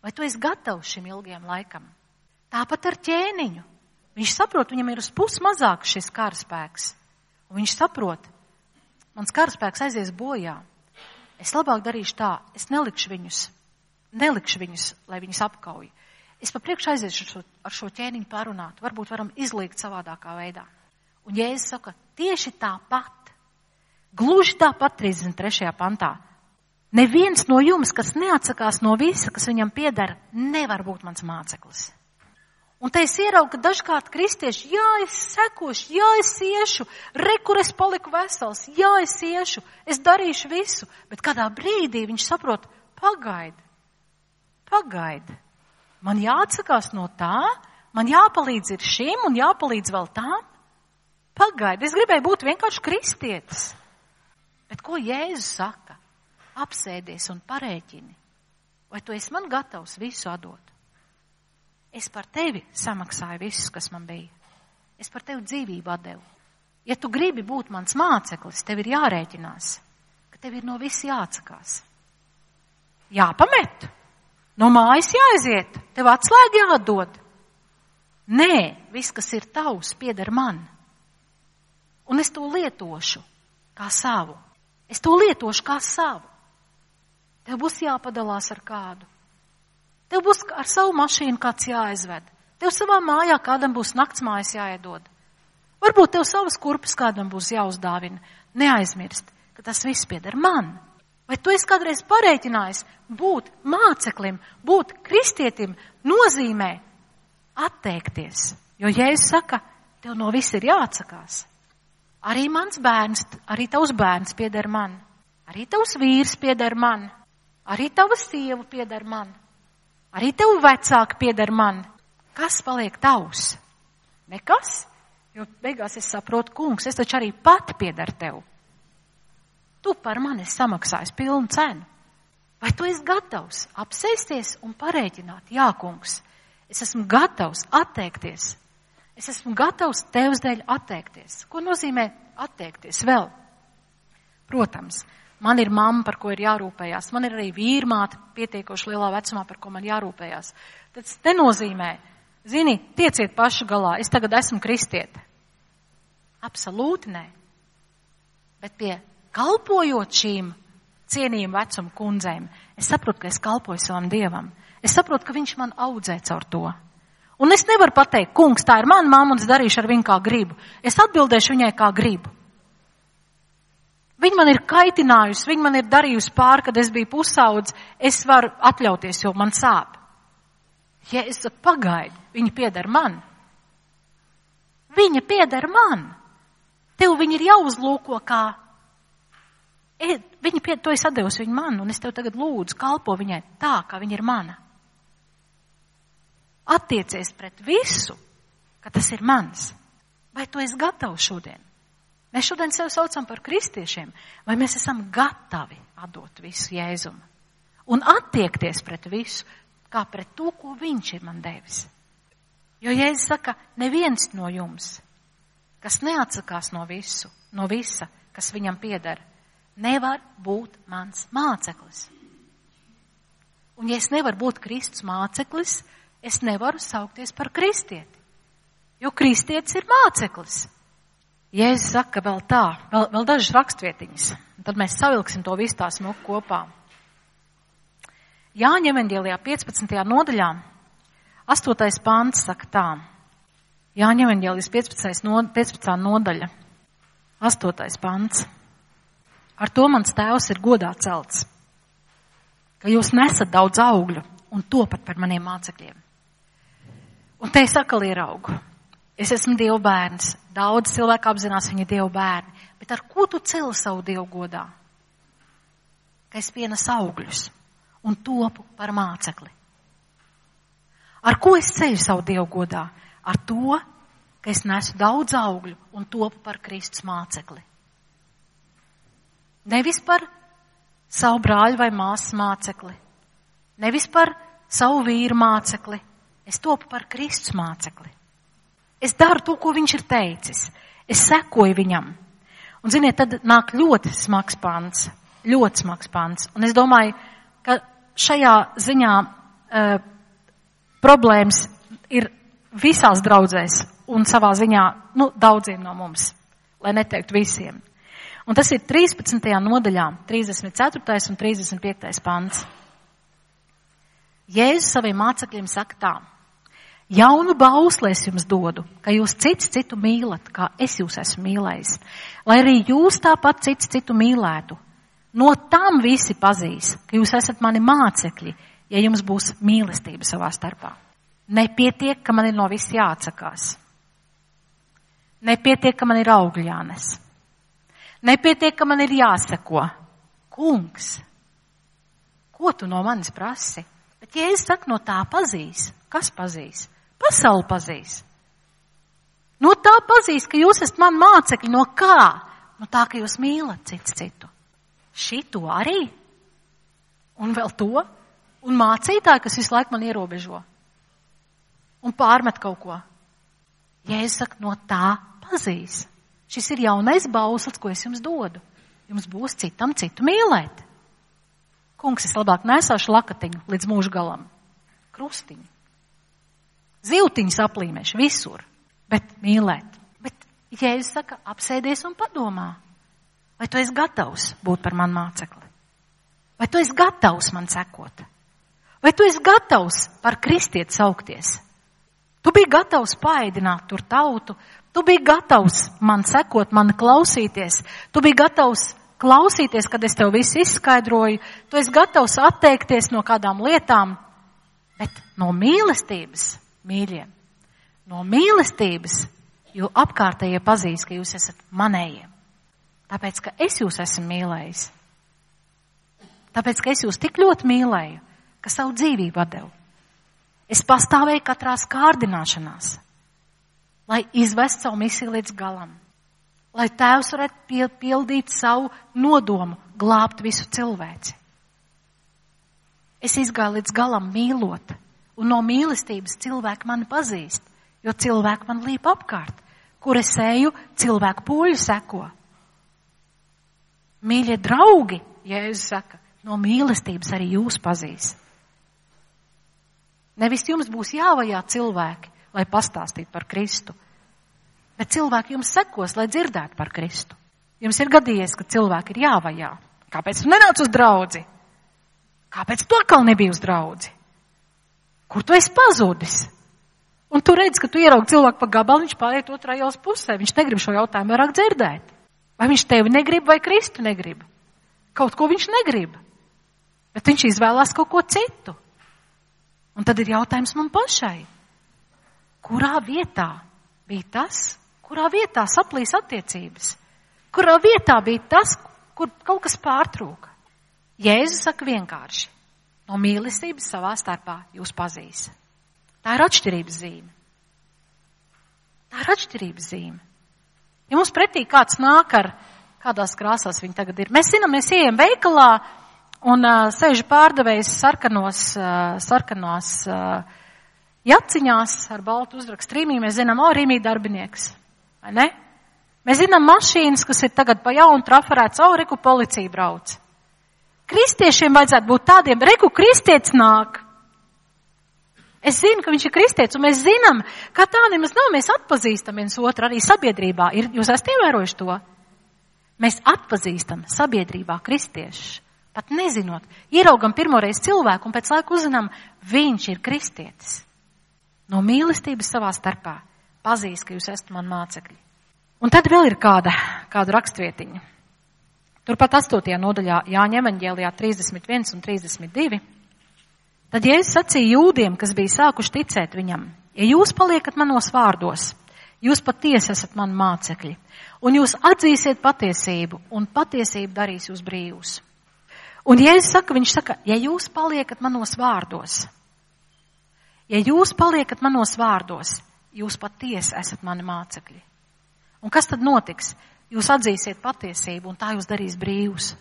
Vai tu esi gatavs šim ilgiem laikam? Tāpat ar ķēniņu. Viņš saprot, viņam ir uz pusi mazāk šis karaspēks. Un viņš saprot, mans karaspēks aizies bojā. Es labāk darīšu tā, es nelikšu viņus, lai viņus apkauj. Es pa priekšu aiziešu ar šo ķēniņu parunāt, varbūt varam izliekt savādākā veidā. Un Jēzus saka, tieši tāpat, gluži tāpat 33. pantā. Neviens no jums, kas neatsakās no visa, kas viņam pieder, nevar būt mans māceklis. Un te es ieraugu, ka dažkārt kristieši, jā, es sekošu, jā, es iešu, kur es paliku vesels, jā, es iešu, es darīšu visu, bet kādā brīdī viņš saprot, pagaidi, man jāatsakās no tā, man jāpalīdz ir šim un jāpalīdz vēl tām, pagaidi, es gribēju būt vienkārši kristietis. Bet ko Jēzus saka? Apsēdies un parēķini, vai tu esi man gatavs visu atdot? Es par tevi samaksāju visus, kas man bija. Es par tevi dzīvību atdevu. Ja tu gribi būt mans māceklis, tev ir jārēķinās, ka tev ir no viss jāatsakās. Jāpamet. No mājas jāaiziet. Tev atslēga jāatdod. Nē, viss, kas ir tavs, pieder man. Un es to lietošu kā savu. Tev būs jāpadalās ar kādu. Tev būs ar savu mašīnu kāds jāaizved. Tev savā mājā kādam būs naktsmājas jāiedod. Varbūt tev savas kurpes kādam būs jāuzdāvina. Neaizmirst, ka tas viss pieder man. Vai tu esi kādreiz parēķinājis būt māceklim, būt kristietim nozīmē atteikties? Jo Jēzus saka, tev no viss ir jāatsakās. Arī mans bērns, arī tavs bērns pieder man. Arī tavs vīrs pieder man. Arī tava sieva pieder man. Arī tev vecāki pieder man. Kas paliek tavs? Nekas, jo beigās es saprotu, kungs, es taču arī pati pieder tev. Tu par mani esi samaksājis pilnu cenu. Vai tu esi gatavs apsēsties un parēķināt? Jā, kungs, es esmu gatavs atteikties. Es esmu gatavs tevs dēļ atteikties. Ko nozīmē atteikties vēl? Protams, man ir mamma, par ko ir jārūpējās. Man ir arī vīrmāte pietiekoši lielā vecumā, par ko man jārūpējās. Tas nenozīmē, zini, tieciet paši galā, es tagad esmu kristiete. Absolūti nē. Bet pie kalpojot šīm cienījuma vecuma kundzēm, es saprotu, ka es kalpoju savam Dievam. Es saprotu, ka viņš man audzē caur to. Un es nevaru pateikt, kungs, tā ir mana mamma un es darīšu ar viņu kā gribu. Es atbildēšu viņai kā gribu. Viņa man ir kaitinājusi, viņa man ir darījusi pāri, kad es biju pusaudz, es varu atļauties, jo man sāp. Ja es saku, pagaidi, viņa pieder man. Viņa pieder man. Tev viņa ir jāuzlūko kā, tu esi atdevusi viņu man, un es tev tagad lūdzu, kalpo viņai tā, kā viņa ir mana. Attiecies pret visu, ka tas ir mans. Vai tu esi gatavs šodien? Mēs šodien sev saucam par kristiešiem, vai mēs esam gatavi atdot visu Jēzum un attiekties pret visu, kā pret to, ko viņš ir man devis. Jo Jēzus saka, neviens no jums, kas neatsakās no visa, kas viņam pieder, nevar būt mans māceklis. Un ja es nevaru būt Kristus māceklis, es nevaru saukties par kristieti, jo kristietis ir māceklis. Jēzus saka vēl tā, vēl dažas rakstvietiņas, un tad mēs savilksim to visu tā smuku kopā. Jāņa evaņģēlijā 15. nodaļā, 8. pants saka tā. Jāņa evaņģēlijas 15. nodaļa, 8. pants. Ar to mans tēvs ir godā celts, ka jūs nesat daudz augļu un topat par maniem mācekļiem. Un te es atkal ieraugu. Es esmu Dieva bērns. Daudz cilvēku apzinās, viņi ir Dieva bērni. Bet ar ko tu celi savu Dievu godā? Ka es pienesu augļus un topu par mācekli. Ar ko es ceļu savu Dievu godā? Ar to, ka es nesu daudz augļu un topu par Kristus mācekli. Nevis par savu brāļu vai māsas mācekli. Nevis par savu vīru mācekli. Es topu par Kristus mācekli. Es daru to, ko viņš ir teicis. Es sekoju viņam. Un, ziniet, tad nāk ļoti smags pants. Ļoti smags pants. Un es domāju, ka šajā ziņā problēmas ir visās draudzēs un savā ziņā, daudziem no mums, lai neteiktu visiem. Un tas ir 13. nodaļā, 34. un 35. pants. Jēzus saviem mācekļiem saka tā: jaunu bausli es jums dodu, ka jūs cits citu mīlat, kā es jūs esmu mīlējis, lai arī jūs tāpat cits citu mīlētu. No tam visi pazīs, ka jūs esat mani mācekļi, ja jums būs mīlestība savā starpā. Nepietiek, ka man ir no viss jāatsakās. Nepietiek, ka man ir augļi jānes. Nepietiek, ka man ir jāseko. Kungs, ko tu no manis prasi? Bet ja es saku, no tā pazīs. Kas pazīs? Pasauli pazīs. No tā pazīs, ka jūs esat man mācekļi. No kā? No tā, ka jūs mīlat cits citu. Šito arī? Un vēl to? Un mācītāji, kas visu laiku man ierobežo. Un pārmet kaut ko. Ja es saku, no tā pazīs. Šis ir jaunais bauslis, ko es jums dodu. Jums būs citam citu mīlēt. Kungs, es labāk nesāšu lakatiņu līdz mūža galam. Krustiņu. Zivtiņus aplīmēšu visur. Bet mīlēt. Bet Jēzus saka, apsēdies un padomā. Vai tu esi gatavs būt par manu mācekli? Vai tu esi gatavs man sekot? Vai tu esi gatavs par kristieti saukties? Tu biji gatavs paēdināt tur tautu. Tu biji gatavs man sekot, man klausīties. Tu biji gatavs klausīties, kad es tev visu izskaidroju. Tu esi gatavs atteikties no kādām lietām. Bet no mīlestības, mīļie, no mīlestības, jo apkārtējie pazīs, ka jūs esat manējie. Tāpēc, ka es jūs esmu mīlējis. Tāpēc, ka es jūs tik ļoti mīlēju, ka savu dzīvību atdevu. Es pastāvēju katrās kārdināšanās, lai izvest savu misiju līdz galam. Lai Tēvs varētu pildīt savu nodomu, glābt visu cilvēci. Es izgāju līdz galam mīlot, un no mīlestības cilvēki mani pazīst, jo cilvēki man līp apkārt. Kur es eju, cilvēku pūļu seko. Mīļie draugi, Jēzus saka, no mīlestības arī jūs pazīst. Nevis jums būs jāvajā cilvēki, lai pastāstītu par Kristu. Bet cilvēki jums sekos, lai dzirdētu par Kristu. Jums ir gadījies, ka cilvēki ir jāvajā. Kāpēc tu nenāc uz draudzi? Kāpēc tu atkal nebija uz draudzi? Kur tu esi pazudis? Un tu redz, ka tu ieraugi cilvēku pa gabalu, viņš pāriet otrā ielas pusē. Viņš negrib šo jautājumu vairāk dzirdēt. Vai viņš tevi negrib, vai Kristu negrib? Kaut ko viņš negrib. Bet viņš izvēlās kaut ko citu. Un tad ir jautājums man pašai. Kurā vietā bija tas, kurā vietā saplīs attiecības? Kurā vietā bija tas, kur kaut kas pārtrūka? Jēzus saka vienkārši, no mīlestības savā starpā jūs pazīs. Tā ir atšķirības zīme. Tā ir atšķirības zīme. Ja mums pretī kāds nāk ar kādās krāsās viņi tagad ir. Mēs zinām, mēs ejam veikalā un sēž pārdevējs sarkanās jaciņās ar baltu uzrakstu Rīmī. Mēs zinām, Rīmī darbinieks. Vai ne? Mēs zinām mašīnas, kas ir tagad pa jaunu trafarēts, reku policija brauc. Kristiešiem vajadzētu būt tādiem, reku kristietis nāk. Es zinu, ka viņš ir kristietis, un mēs zinām, ka tā nemaz nav, mēs atpazīstam viens otru arī sabiedrībā. Jūs esat ievērojuši to? Mēs atpazīstam sabiedrībā kristiešus, pat nezinot. Ieraugam pirmoreiz cilvēku, un pēc laika uzzinām, viņš ir kristietis. No mīlestības savā starpā pazīst, ka jūs esat man mācekļi. Un tad vēl ir kāda rakstvietiņa. Turpat 8. nodaļā Jāņa evaņģēlijā 31 un 32. Tad Jēzus sacīja jūdiem, kas bija sākuši ticēt viņam, ja jūs paliekat manos vārdos, jūs patiesi esat mani mācekļi, un jūs atzīsiet patiesību, un patiesība darīs jūs brīvus. Un Jēzus saka, viņš saka, ja jūs paliekat manos vārdos, jūs patiesi esat mani mācekļi. Un kas tad notiks? Jūs atzīsiet patiesību, un tā jūs darīs brīvus.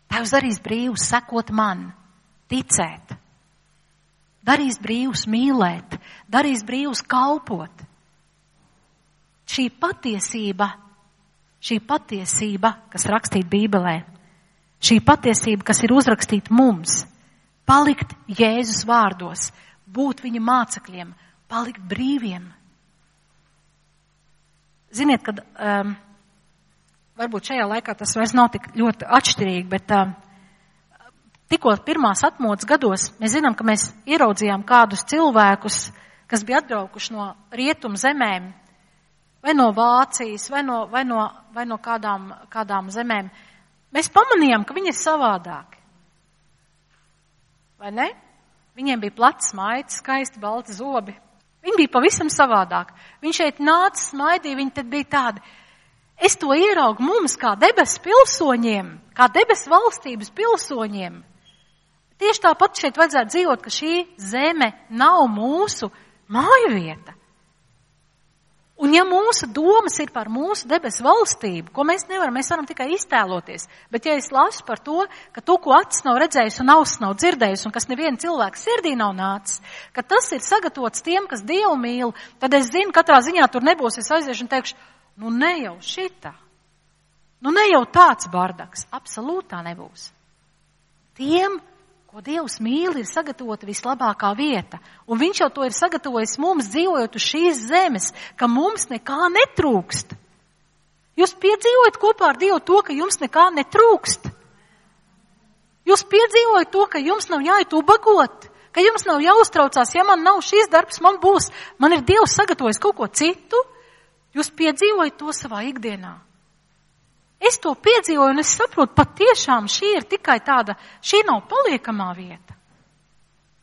Tā jūs darīs brīvus sekot man. Ticēt, darīs brīvus mīlēt, darīs brīvus kalpot. Šī patiesība, kas rakstīta Bībelē, šī patiesība, kas ir uzrakstīta mums, palikt Jēzus vārdos, būt viņa mācekļiem, palikt brīviem, ziniet, kad varbūt šajā laikā tas vairs nav tik ļoti atšķirīgi, bet tikko pirmās atmodas gados mēs zinām, ka mēs ieraudzījām kādus cilvēkus, kas bija atbraukuši no rietumu zemēm, vai no Vācijas, vai no kādām zemēm. Mēs pamanījām, ka viņi ir savādāki. Vai ne? Viņiem bija plats maitis, skaisti balti zobi. Viņi bija pavisam savādāki. Viņi šeit nāca, smaidīja, viņi tad bija tādi. Es to ieraugu mums kā debesu pilsoņiem, kā debesu valstības pilsoņiem. Tieši tāpat šeit vajadzētu dzīvot, ka šī zeme nav mūsu mājvieta. Un ja mūsu domas ir par mūsu debesu valstību, ko mēs varam tikai iztēloties, bet ja es lasu par to, ka to, ko acis nav redzējis un auss nav dzirdējis un kas neviena cilvēka sirdī nav nācis, ka tas ir sagatavots tiem, kas Dievu mīl, tad es zinu, katrā ziņā tur nebūs, es aiziešu un teikšu, nu ne jau šitā, nu ne jau tāds bardaks, absolūtā nebūs. Tiem, ko Dievs mīl, ir sagatavota vislabākā vieta. Un viņš jau to ir sagatavojis mums, dzīvojot uz šīs zemes, ka mums nekā netrūkst. Jūs piedzīvojat kopā ar Dievu to, ka jums nekā netrūkst. Jūs piedzīvojat to, ka jums nav jāiet ubagot, ka jums nav jāuztraucās, ja man nav šis darbs, man ir Dievs sagatavojis kaut ko citu. Jūs piedzīvojat to savā ikdienā. Es to piedzīvoju un es saprotu, patiešām šī ir tikai šī nav paliekamā vieta.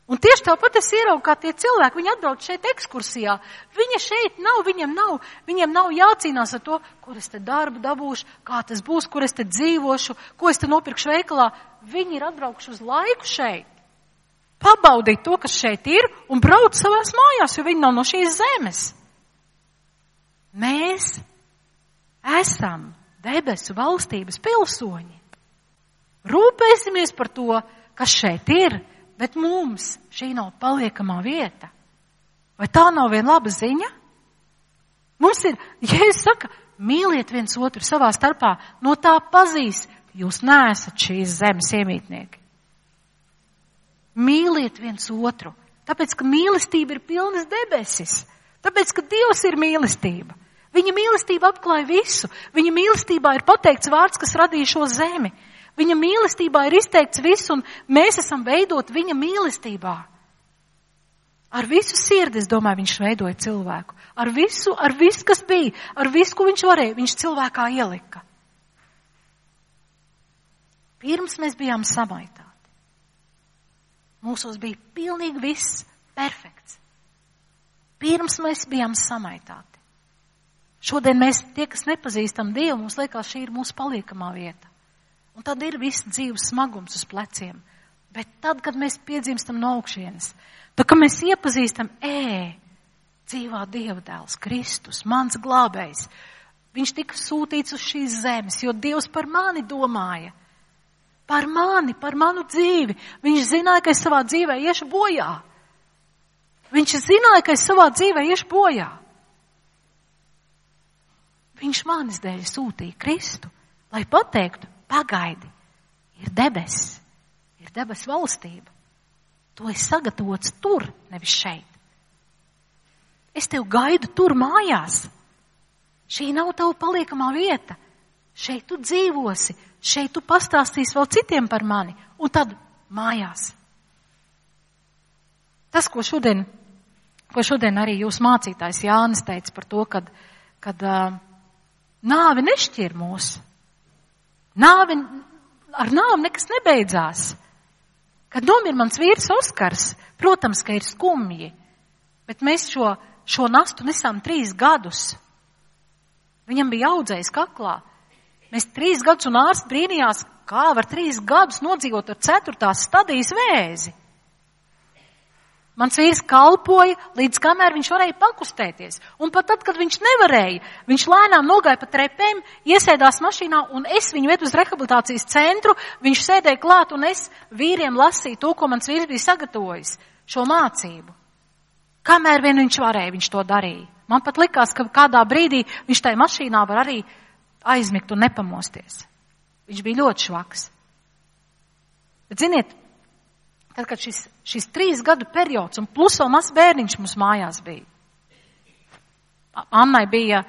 Un tieši tāpat es ieraugu, kā tie cilvēki, viņi atbrauc šeit ekskursijā. Viņa šeit nav, viņiem nav jācīnās ar to, kur es te darbu dabūšu, kā tas būs, kur es te dzīvošu, ko es te nopirkšu veikalā. Viņi ir atbraukuši uz laiku šeit. Pabaudīt to, kas šeit ir, un brauc savās mājās, jo viņi nav no šīs zemes. Mēs esam debesu valstības pilsoņi. Rūpēsimies par to, kas šeit ir, bet mums šī nav paliekamā vieta. Vai tā nav viena laba ziņa? Mums ir, Jēzus saka, mīliet viens otru savā starpā, no tā pazīs, jūs neesat šīs zemes iemītnieki. Mīliet viens otru, tāpēc, ka mīlestība ir pilnas debesis, tāpēc, ka Dievs ir mīlestība. Viņa mīlestība apklāja visu. Viņa mīlestībā ir pateikts vārds, kas radīja šo zemi. Viņa mīlestībā ir izteikts viss, un mēs esam veidot viņa mīlestībā. Ar visu sirdi, es domāju, viņš veidoja cilvēku. Ar visu, kas bija, ar visu, ko viņš varēja, viņš cilvēkā ielika. Pirms mēs bijām samaitāti. Mūsos bija pilnīgi viss perfekts. Pirms mēs bijām samaitāti. Šodien mēs, tie, kas nepazīstam Dievu, mums liekas, šī ir mūsu paliekamā vieta. Un tad ir viss dzīves smagums uz pleciem. Bet tad, kad mēs piedzimstam no augšienes, tad, kad mēs iepazīstam, dzīvā Dieva dēls, Kristus, mans glābējs, viņš tika sūtīts uz šīs zemes, jo Dievs par mani domāja. Par mani, par manu dzīvi. Viņš zināja, ka es savā dzīvē iešu bojā. Viņš zināja, ka es savā dzīvē iešu bojā. Viņš manis dēļ sūtīja Kristu, lai pateiktu, pagaidi, ir debesis, ir debesu valstība. To ir sagatavots tur, nevis šeit. Es tev gaidu tur mājās. Šī nav tava paliekamā vieta. Šeit tu dzīvosi, šeit tu pastāstīsi vēl citiem par mani, un tad mājās. Tas, ko šodien arī jūs mācītājs Jānis teica par to, kad nāve nešķir mūs. Ar nāvi nekas nebeidzās. Kad nomir mans vīrs Oskars, protams, ka ir skumji, bet mēs šo nastu nesām 3 gadus. Viņam bija audzējs kaklā. Mēs 3 gadus un ārsts brīnījās, kā var 3 gadus nodzīvot ar 4. stadijas vēzi. Mans vīrs kalpoja, līdz kamēr viņš varēja pakustēties. Un pat tad, kad viņš nevarēja, viņš lēnām nogāja pa trepēm, iesēdās mašīnā, un es viņu vedu uz rehabilitācijas centru, viņš sēdēja klāt, un es vīriem lasīju to, ko mans vīrs bija sagatavojis, šo mācību. Kamēr vien viņš varēja, viņš to darīja. Man pat likās, ka kādā brīdī viņš tajā mašīnā var arī aizmigt un nepamosties. Viņš bija ļoti švaks. Bet ziniet, tad, kad šis 3 gadu periods un plus vēl mazs bērniņš mums mājās bija. Annai bija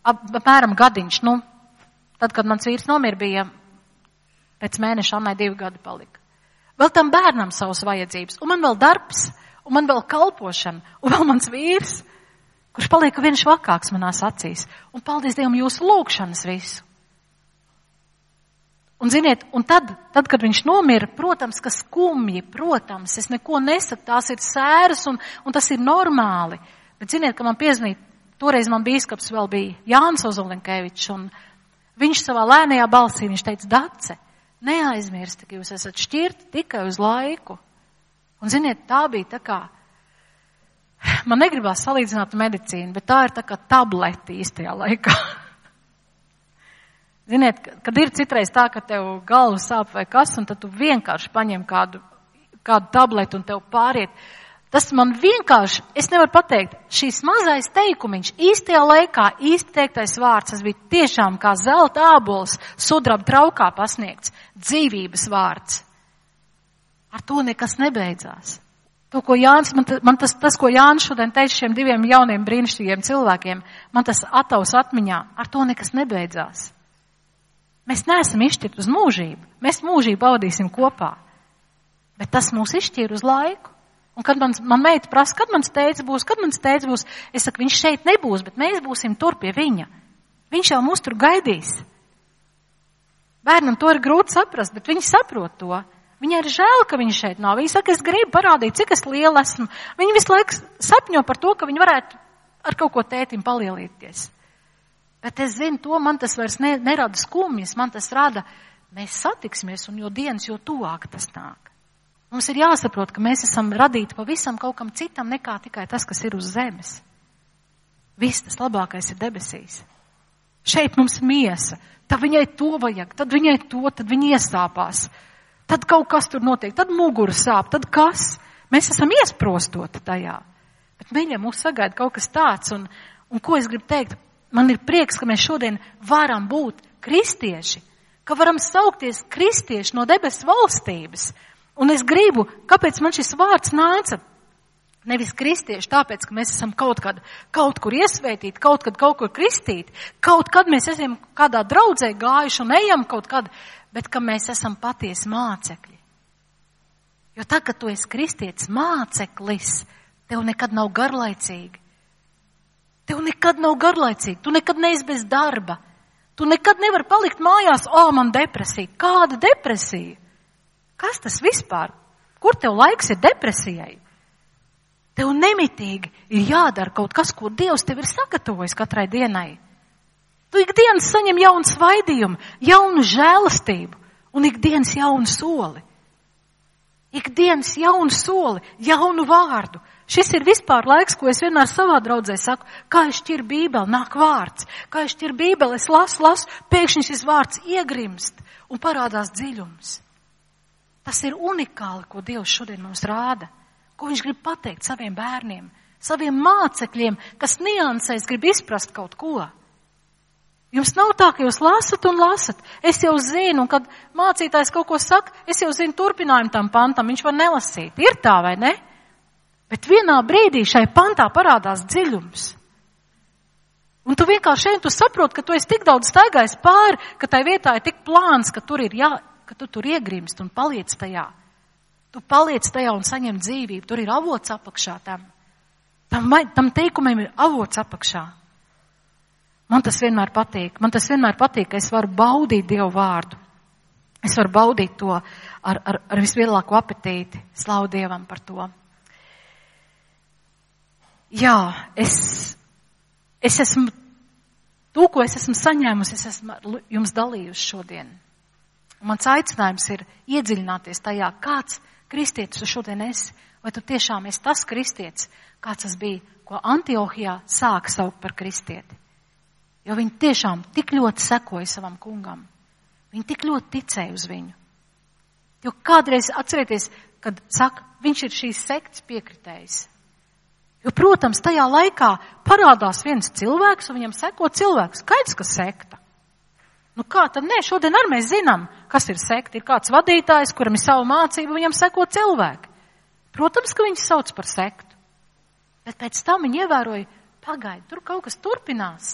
apmēram gadiņš, tad, kad mans vīrs nomira, bija pēc mēneša Annai 2 gadi palika. Vēl tam bērnam savas vajadzības, un man vēl darbs, un man vēl kalpošana, un vēl mans vīrs, kurš paliek viens švakāks manās acīs. Un paldies Dievam jūsu lūgšanas visu. Un ziniet, un tad, kad viņš nomira, protams, ka skumji, protams, es neko nesaku, tās ir sēras un tas ir normāli. Bet ziniet, ka man piezvanīja, toreiz man bīskaps vēl bija Jānis Ozolenkevičs, un viņš savā lēnajā balsī, viņš teica, Dace, neaizmirsti, ka jūs esat šķirti tikai uz laiku. Un ziniet, tā bija tā kā, man negribās salīdzināt medicīnu, bet tā ir tā kā tableti īstajā laikā. Ziniet, kad ir citreiz tā, ka tev galva sāp vai kas, un tad tu vienkārši paņem kādu tabletu un tev pāriet. Tas man vienkārši, es nevaru pateikt, šīs mazais teikumiņš, īstajā laikā, īsti teiktais vārds, tas bija tiešām kā zelta ābols, sudraba traukā pasniegts, dzīvības vārds. Ar to nekas nebeidzās. To, ko Jānis, man tas, ko Jānis šodien teica šiem 2 jauniem brīnišķīgiem cilvēkiem, man tas ataus atmiņā, ar to nekas nebeidzās. Mēs neesam izšķirti uz mūžību, mēs mūžību baudīsim kopā, bet tas mūs izšķir uz laiku. Un kad man meita prasa, kad mans tēvs būs, es saku, viņš šeit nebūs, bet mēs būsim tur pie viņa. Viņš jau mūs tur gaidīs. Bērnam to ir grūti saprast, bet viņi saprot to. Viņai ir žēl, ka viņš šeit nav. Viņa saka, es gribu parādīt, cik es liela esmu. Viņi visu laiku sapņo par to, ka viņi varētu ar kaut ko tētim palielīties. Bet es zinu to, man tas vairs nerada skumjas, man tas rada, mēs satiksimies, un jo dienas, jo tuvāk tas nāk. Mums ir jāsaprot, ka mēs esam radīti pavisam kaut kam citam nekā tikai tas, kas ir uz zemes. Viss tas labākais ir debesīs. Šeit mums miesa, tad viņai to vajag, tad viņai to, tad viņa iesāpās. Tad kaut kas tur notiek, tad mugura sāp, tad kas? Mēs esam iesprostoti tajā. Bet mīļa, mūs sagaida kaut kas tāds, un ko es gribu teikt? Man ir prieks, ka mēs šodien varam būt kristieši, ka varam saukties kristieši no debesu valstības. Un es gribu, kāpēc man šis vārds nāca? Nevis kristieši, tāpēc, ka mēs esam kaut kur iesvētīti, kaut kur kristīti, kaut kad mēs esam kādā draudzē gājuši un ejam kaut kad, bet ka mēs esam patiesi mācekļi. Jo tā, kad tu esi kristietis māceklis, tev nekad nav garlaicīgi. Tev nekad nav garlaicīgi, tu nekad neesi bez darba. Tu nekad nevari palikt mājās, man depresija. Kāda depresija? Kas tas vispār? Kur tev laiks ir depresijai? Tev nemitīgi ir jādara kaut kas, ko Dievs tev ir sagatavojis katrai dienai. Tu ikdienas saņem jaunu svaidījumu, jaunu žēlastību un ikdienas jaunu soli. Ikdienas jaunu soli, jaunu vārdu. Šis ir vispār laiks, ko es vienmēr savā draudzē saku, kā es šķiru Bībeli, nāk vārds. Kā es šķiru Bībeli, es lasu, pēkšņi šis vārds iegrimst un parādās dziļums. Tas ir unikāli, ko Dievs šodien mums rāda, ko viņš grib pateikt saviem bērniem, saviem mācekļiem, kas niansēs grib izprast kaut ko. Jums nav tā, ka jūs lasat un lasat. Es jau zinu, un kad mācītājs kaut ko saka, es jau zinu turpinājumu tam pantam, viņš var nelasīt. Ir tā vai ne? Bet vienā brīdī šai pantā parādās dziļums. Un tu vienkārši tu saproti, ka tu esi tik daudz staigājis pāri, ka tai vietā ir tik plāns, ka tur ir ka tu tur iegrimst un paliec tajā. Tu paliec tajā un saņem dzīvību. Tur ir avots apakšā tam. Tam teikumiem ir avots apakšā. Man tas vienmēr patīk. Man tas vienmēr patīk, ka es varu baudīt Dievu vārdu. Es varu baudīt to ar vislielāko apetīti. Slavu Dievam par to. Jā, es esmu, to, ko es esmu saņēmusi, es esmu jums dalījusi šodien. Un mans aicinājums ir iedziļināties tajā, kāds kristietis tu šodien esi, vai tu tiešām esi tas kristietis, kāds tas bija, ko Antiohijā sāka saukt par kristieti. Jo viņi tiešām tik ļoti sekoja savam kungam. Viņi tik ļoti ticēja uz viņu. Jo kādreiz atcerieties, kad saka, viņš ir šīs sektas piekritējs. Jo, protams, tajā laikā parādās viens cilvēks un viņam seko cilvēks. Skaidrs, ka sekta. Nu kā tad nē, šodien arī mēs zinām, kas ir sekta. Ir kāds vadītājs, kuram ir savu mācību, viņam seko cilvēki. Protams, ka viņi sauc par sektu. Bet pēc tam viņi ievēroja, pagaidi, tur kaut kas turpinās.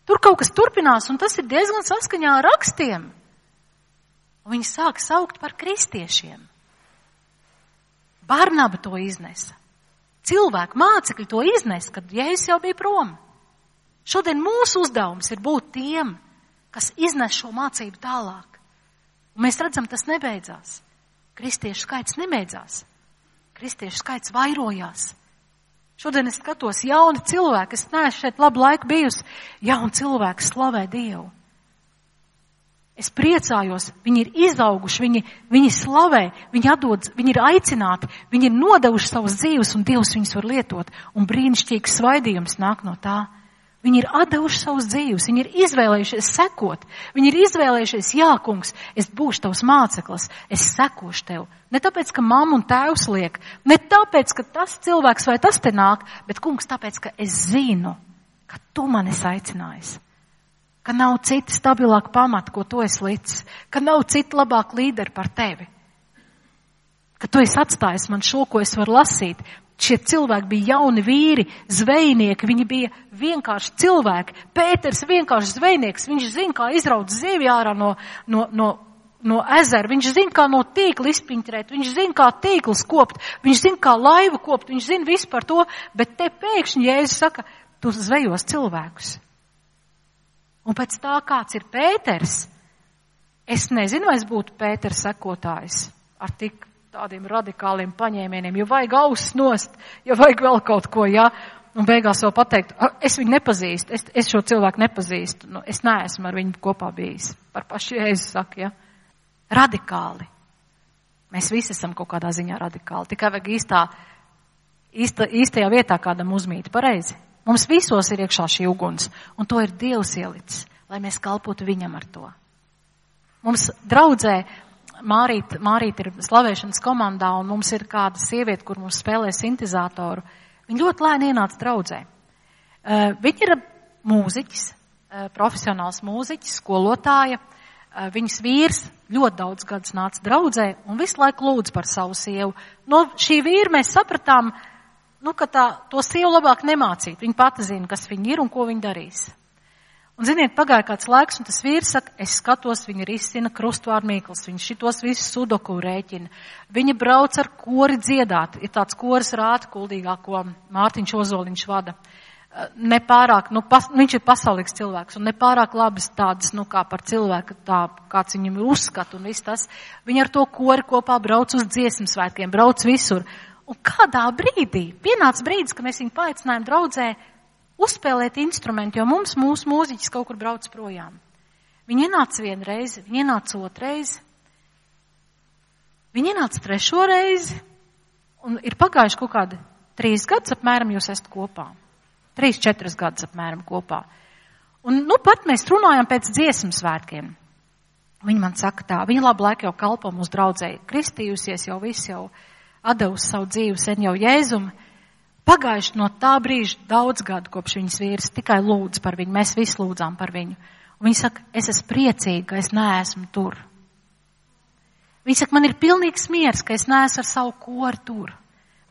Tur kaut kas turpinās, un tas ir diezgan saskaņā ar rakstiem. Un viņi sāk saukt par kristiešiem. Barnaba to iznesa. Cilvēku mācekļi to iznesa, kad Jēzus jau bija prom. Šodien mūsu uzdevums ir būt tiem, kas iznes šo mācību tālāk. Un mēs redzam, tas nebeidzās. Kristiešu skaits nebeidzās. Kristiešu skaits vairojās. Šodien es skatos jauni cilvēki, es neesmu šeit labu laiku bijusi, jauni cilvēki slavē Dievu. Es priecājos, viņi ir izauguši, viņi slavē, viņi ir aicināti, viņi ir nodevuši savas dzīves un Dievs viņus var lietot. Un brīnišķīgs svaidījums nāk no tā. Viņi ir atdevuši savas dzīves, viņi ir izvēlējušies sekot. Viņi ir izvēlējušies, jā, kungs, es būšu tavs māceklis, es sekošu tev. Ne tāpēc, ka mamma un tēvs liek, ne tāpēc, ka tas cilvēks vai tas te nāk, bet, kungs, tāpēc, ka es zinu, ka tu mani esi aicinājis. Ka nav cita stabilāka pamata, ko tu esi licis, ka nav cita labāka līderi par tevi. Ka tu esi atstājis man šo, ko es varu lasīt. Šie cilvēki bija jauni vīri, zvejnieki, viņi bija vienkārši cilvēki. Pēters vienkārši zvejnieks, viņš zina, kā izraut zivi ārā no ezera, viņš zina, kā no tīkla izpiņķrēt, viņš zina, kā tīkls kopt, viņš zina, kā laivu kopt, viņš zina visu par to, bet te pēkšņi Jēzus saka, tu zvejos cilvēkus. Un pēc tā, kāds ir Pēters, es nezinu, vai es būtu Pēters sekotājs ar tik tādiem radikāliem paņēmieniem, jo vajag ausis nost, jo vajag vēl kaut ko, jā, un beigās vēl pateikt, es viņu nepazīstu, es šo cilvēku nepazīstu, es neesmu ar viņu kopā bijis. Par pašu Jēzus saka, jā. Radikāli. Mēs visi esam kaut kādā ziņā radikāli, tikai vajag īstajā vietā kādam uzmīt, pareizi. Mums visos ir iekšā šī uguns, un to ir Dievs ielicis, lai mēs kalpotu viņam ar to. Mums draudzē Mārīt ir slavēšanas komandā, un mums ir kāda sieviete, kur mums spēlē sintezātoru. Viņa ļoti lēni ienāca draudzē. Viņa ir mūziķis, profesionāls mūziķis, skolotāja. Viņas vīrs ļoti daudz gadus nāca draudzē un visu laiku lūdz par savu sievu. No šī vīra mēs sapratām, ka to sievu labāk nemācīt. Viņa pati zina, kas viņa ir un ko viņa darīs. Un, ziniet, pagāja kāds laiks, un tas vīrs saka, es skatos, viņa risina krustvārdu mīklas, viņa šitos visus sudoku rēķina. Viņa brauc ar kori dziedāt. Ir tāds koris Rāta Kuldīgā, ko Mārtiņš Ozoliņš vada. Nepārāk, viņš ir pasaulīgs cilvēks, un nepārāk labas tādas, kā par cilvēku, tā, kāds viņam ir uzskat un viss tas. Viņa ar to kori kopā brauc uz dziesmu svētkiem, brauc visur. Un kādā brīdī, pienāca brīdis, ka mēs viņu paaicinājām draudzē, uzspēlēt instrumentu, jo mūsu mūziķis kaut kur brauc projām. Viņi ienāca vienu reizi, viņi ienāca otru reizi, viņi ienāca trešo reizi, un ir pagājuši kaut kādi 3 gadus apmēram jūs esat kopā. 3-4 gadus apmēram kopā. Un, pat mēs runājam pēc dziesmu svētkiem. Viņi man saka tā, viņa labu laiku jau kalpo mūsu draudzē, kristījusies jau viss jau atdevusi savu dzīvi sen jau Jēzumu. Pagājuši no tā brīža daudz gadu, kopš viņas vīrs tikai lūdz par viņu. Mēs visi lūdzām par viņu. Un viņa saka, es esmu priecīga, ka es neesmu tur. Viņa saka, man ir pilnīgs miers, ka es neesmu ar savu koru tur.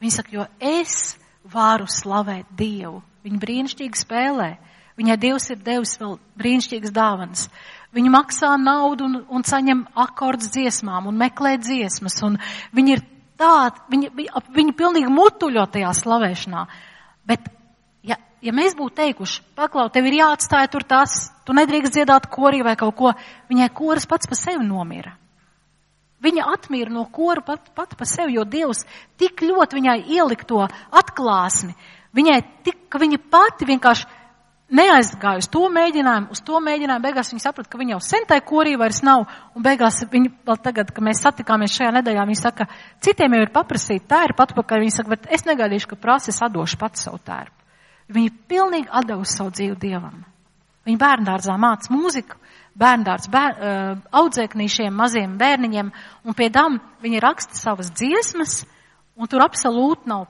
Viņa saka, jo es varu slavēt Dievu. Viņa brīnišķīgi spēlē. Viņai Dievs ir devis vēl brīnišķīgas dāvanas. Viņa maksā naudu un saņem akordus dziesmām un meklē dziesmas. Un viņa ir viņi pilnīgi mutuļo tajā slavēšanā. Bet, ja mēs būtu teikuši, paklau, tev ir jāatstāja tur tas, tu nedrīkst dziedāt korī vai kaut ko, viņai koris pats pa sevi nomira. Viņa atmīra no kora pat pa sevi, jo Dievs tik ļoti viņai ielika to atklāsmi. Viņai tik, ka viņa pati vienkārši neaizgāja uz to mēģinājumu, beigās viņa saprata, ka viņa jau sentai korī vairs nav, un beigās viņa, vēl tagad, kad mēs satikāmies šajā nedēļā, viņa saka, citiem jau ir paprasīt tērpu atpakaļ, viņa saka, bet es negaidīšu, ka prasa, es atdošu pats savu tērpu. Viņa pilnīgi atdevusi savu dzīvi Dievam. Viņa bērndārzā māca mūziku, bērndārz audzēknīšiem, maziem bērniņiem, un pie tam viņa raksta savas dziesmas, un tur absolūti nav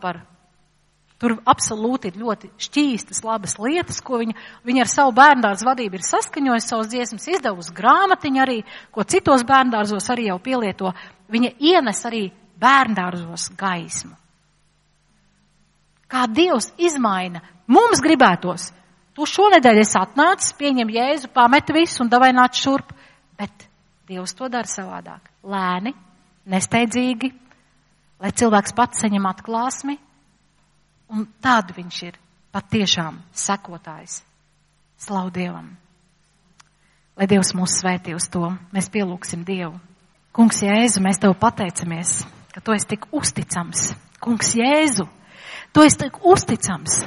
Tur absolūti ir ļoti šķīstas, labas lietas, ko viņa ar savu bērndārzu vadību ir saskaņojusi, savas dziesmas izdevusi grāmatiņu arī, ko citos bērndārzos arī jau pielieto. Viņa ienes arī bērndārzos gaismu. Kā Dievs izmaina, mums gribētos. tu šonedēļ esi atnācis, pieņem Jēzu, pameti visu un davai nāc šurp. Bet Dievs to dara savādāk. Lēni, nesteidzīgi, lai cilvēks pats saņem atklāsmi, un tādu viņš ir patiešām sekotājs. Slavu Dievam. Lai Dievs mūs svētī uz to, mēs pielūksim Dievu. Kungs Jēzu, mēs Tev pateicamies, ka Tu esi tik uzticams. Kungs Jēzu, Tu esi tik uzticams.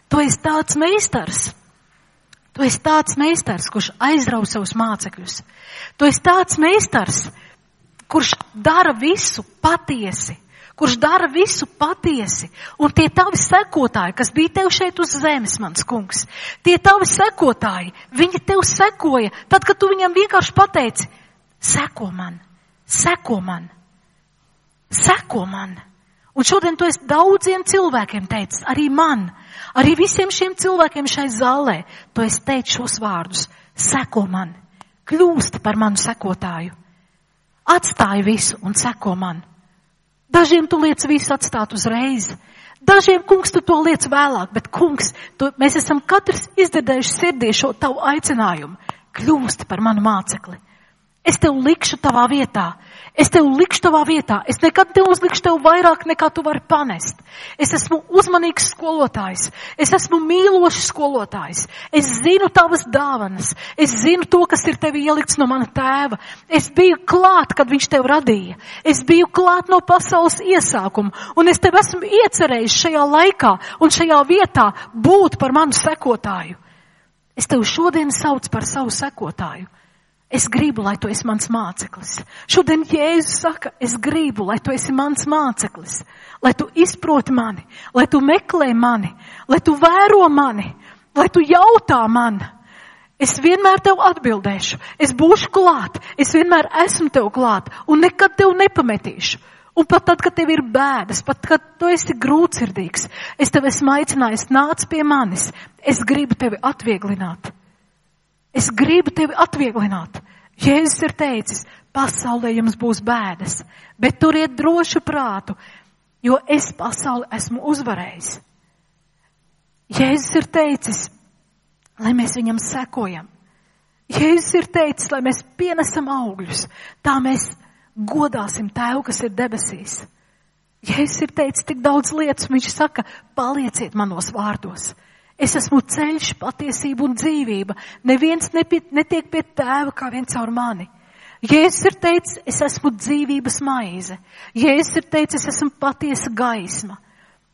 Tu esi tāds meistars. Tu esi tāds meistars, kurš aizrauj savus mācekļus. Tu esi tāds meistars, kurš dara visu patiesi. Kurš dara visu patiesi. Un tie tavi sekotāji, kas bija Tev šeit uz zemes, mans kungs, tie tavi sekotāji, viņi Tev sekoja, tad, kad Tu viņam vienkārši pateici, seko man, seko man, seko man. Un šodien Tu esi daudziem cilvēkiem teicis, arī man, arī visiem šiem cilvēkiem šai zālē, Tu esi teicis šos vārdus, seko man, kļūsti par manu sekotāju, atstāj visu un seko man. Dažiem Tu liec visu atstāt uzreiz. Dažiem, kungs, Tu to liec vēlāk, bet, kungs, mēs esam katrs izdzirdējuši sirdī šo Tavu aicinājumu. Kļūsti par manu mācekli. Es Tev likšu tavā vietā. Es Tev likšu tavā vietā. Es nekad neuzlikšu Tev vairāk, nekā Tu vari panest. Es esmu uzmanīgs skolotājs. Es esmu mīlošs skolotājs. Es zinu Tavas dāvanas. Es zinu to, kas ir Tevi ielikts no mana tēva. Es biju klāt, kad viņš Tev radīja. Es biju klāt no pasaules iesākuma. Un es Tev esmu iecerējis šajā laikā un šajā vietā būt par manu sekotāju. Es Tev šodien saucu par savu sekotāju. Es gribu, lai Tu esi mans māceklis. Šodien Jēzus saka, es gribu, lai Tu esi mans māceklis. Lai Tu izproti mani, lai Tu meklē mani, lai Tu vēro mani, lai Tu jautā man. Es vienmēr Tev atbildēšu, es būšu klāt, es vienmēr esmu Tev klāt un nekad Tev nepametīšu. Un pat tad, kad Tev ir bēdas, pat kad Tu esi grūtsirdīgs, es Tev esmu aicinājis, nāc pie manis. Es gribu Tevi atvieglināt. Es gribu Tevi atvieglināt. Jēzus ir teicis, pasaulē jums būs bēdas, bet turiet drošu prātu, jo es pasauli esmu uzvarējis. Jēzus ir teicis, lai mēs viņam sekojam. Jēzus ir teicis, lai mēs pienesam augļus, tā mēs godāsim Tēvu, kas ir debesīs. Jēzus ir teicis tik daudz lietas, viņš saka, palieciet manos vārdos. Es esmu ceļš, patiesība un dzīvība. Neviens netiek pie Tēva kā vien caur mani. Jēzus ir teicis, es esmu dzīvības maize. Jēzus ir teicis, es esmu patiesa gaisma.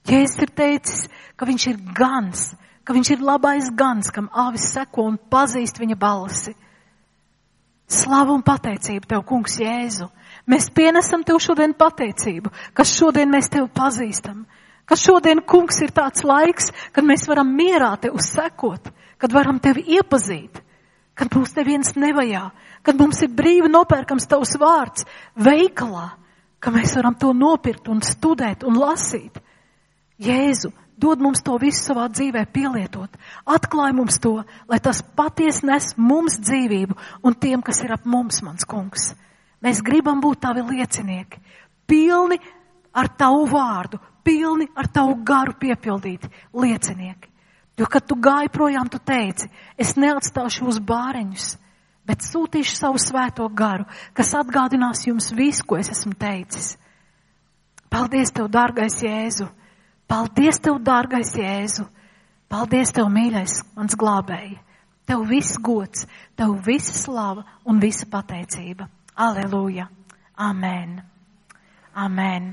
Jēzus ir teicis, ka viņš ir gans, ka viņš ir labais gans, kam āvis seko un pazīst viņa balsi. Slavu un pateicību Tev, kungs Jēzu. Mēs pienesam Tev šodien pateicību, ka šodien mēs Tev pazīstam. Ka šodien, kungs, ir tāds laiks, kad mēs varam mierā Tev sekot, kad varam Tevi iepazīt, kad mums neviens nevajā, kad mums ir brīvi nopērkams Tavs vārds veikalā, ka mēs varam to nopirkt un studēt un lasīt. Jēzu, dod mums to visu savā dzīvē pielietot. Atklāj mums to, lai tas patiesi nes mums dzīvību un tiem, kas ir ap mums, mans kungs. Mēs gribam būt Tavi liecinieki, pilni ar Tavu vārdu, pilni ar Tavu garu piepildīti liecinieki. Jo, kad Tu gāji projām, Tu teici, es neatstāšu uz bāreņus, bet sūtīšu savu svēto garu, kas atgādinās jums visu, ko es esmu teicis. Paldies Tev, dārgais Jēzu! Paldies Tev, dārgais Jēzu! Paldies Tev, mīļais, mans glābēji! Tev viss gods, Tev visa slava un visa pateicība. Aleluja! Amen! Amen!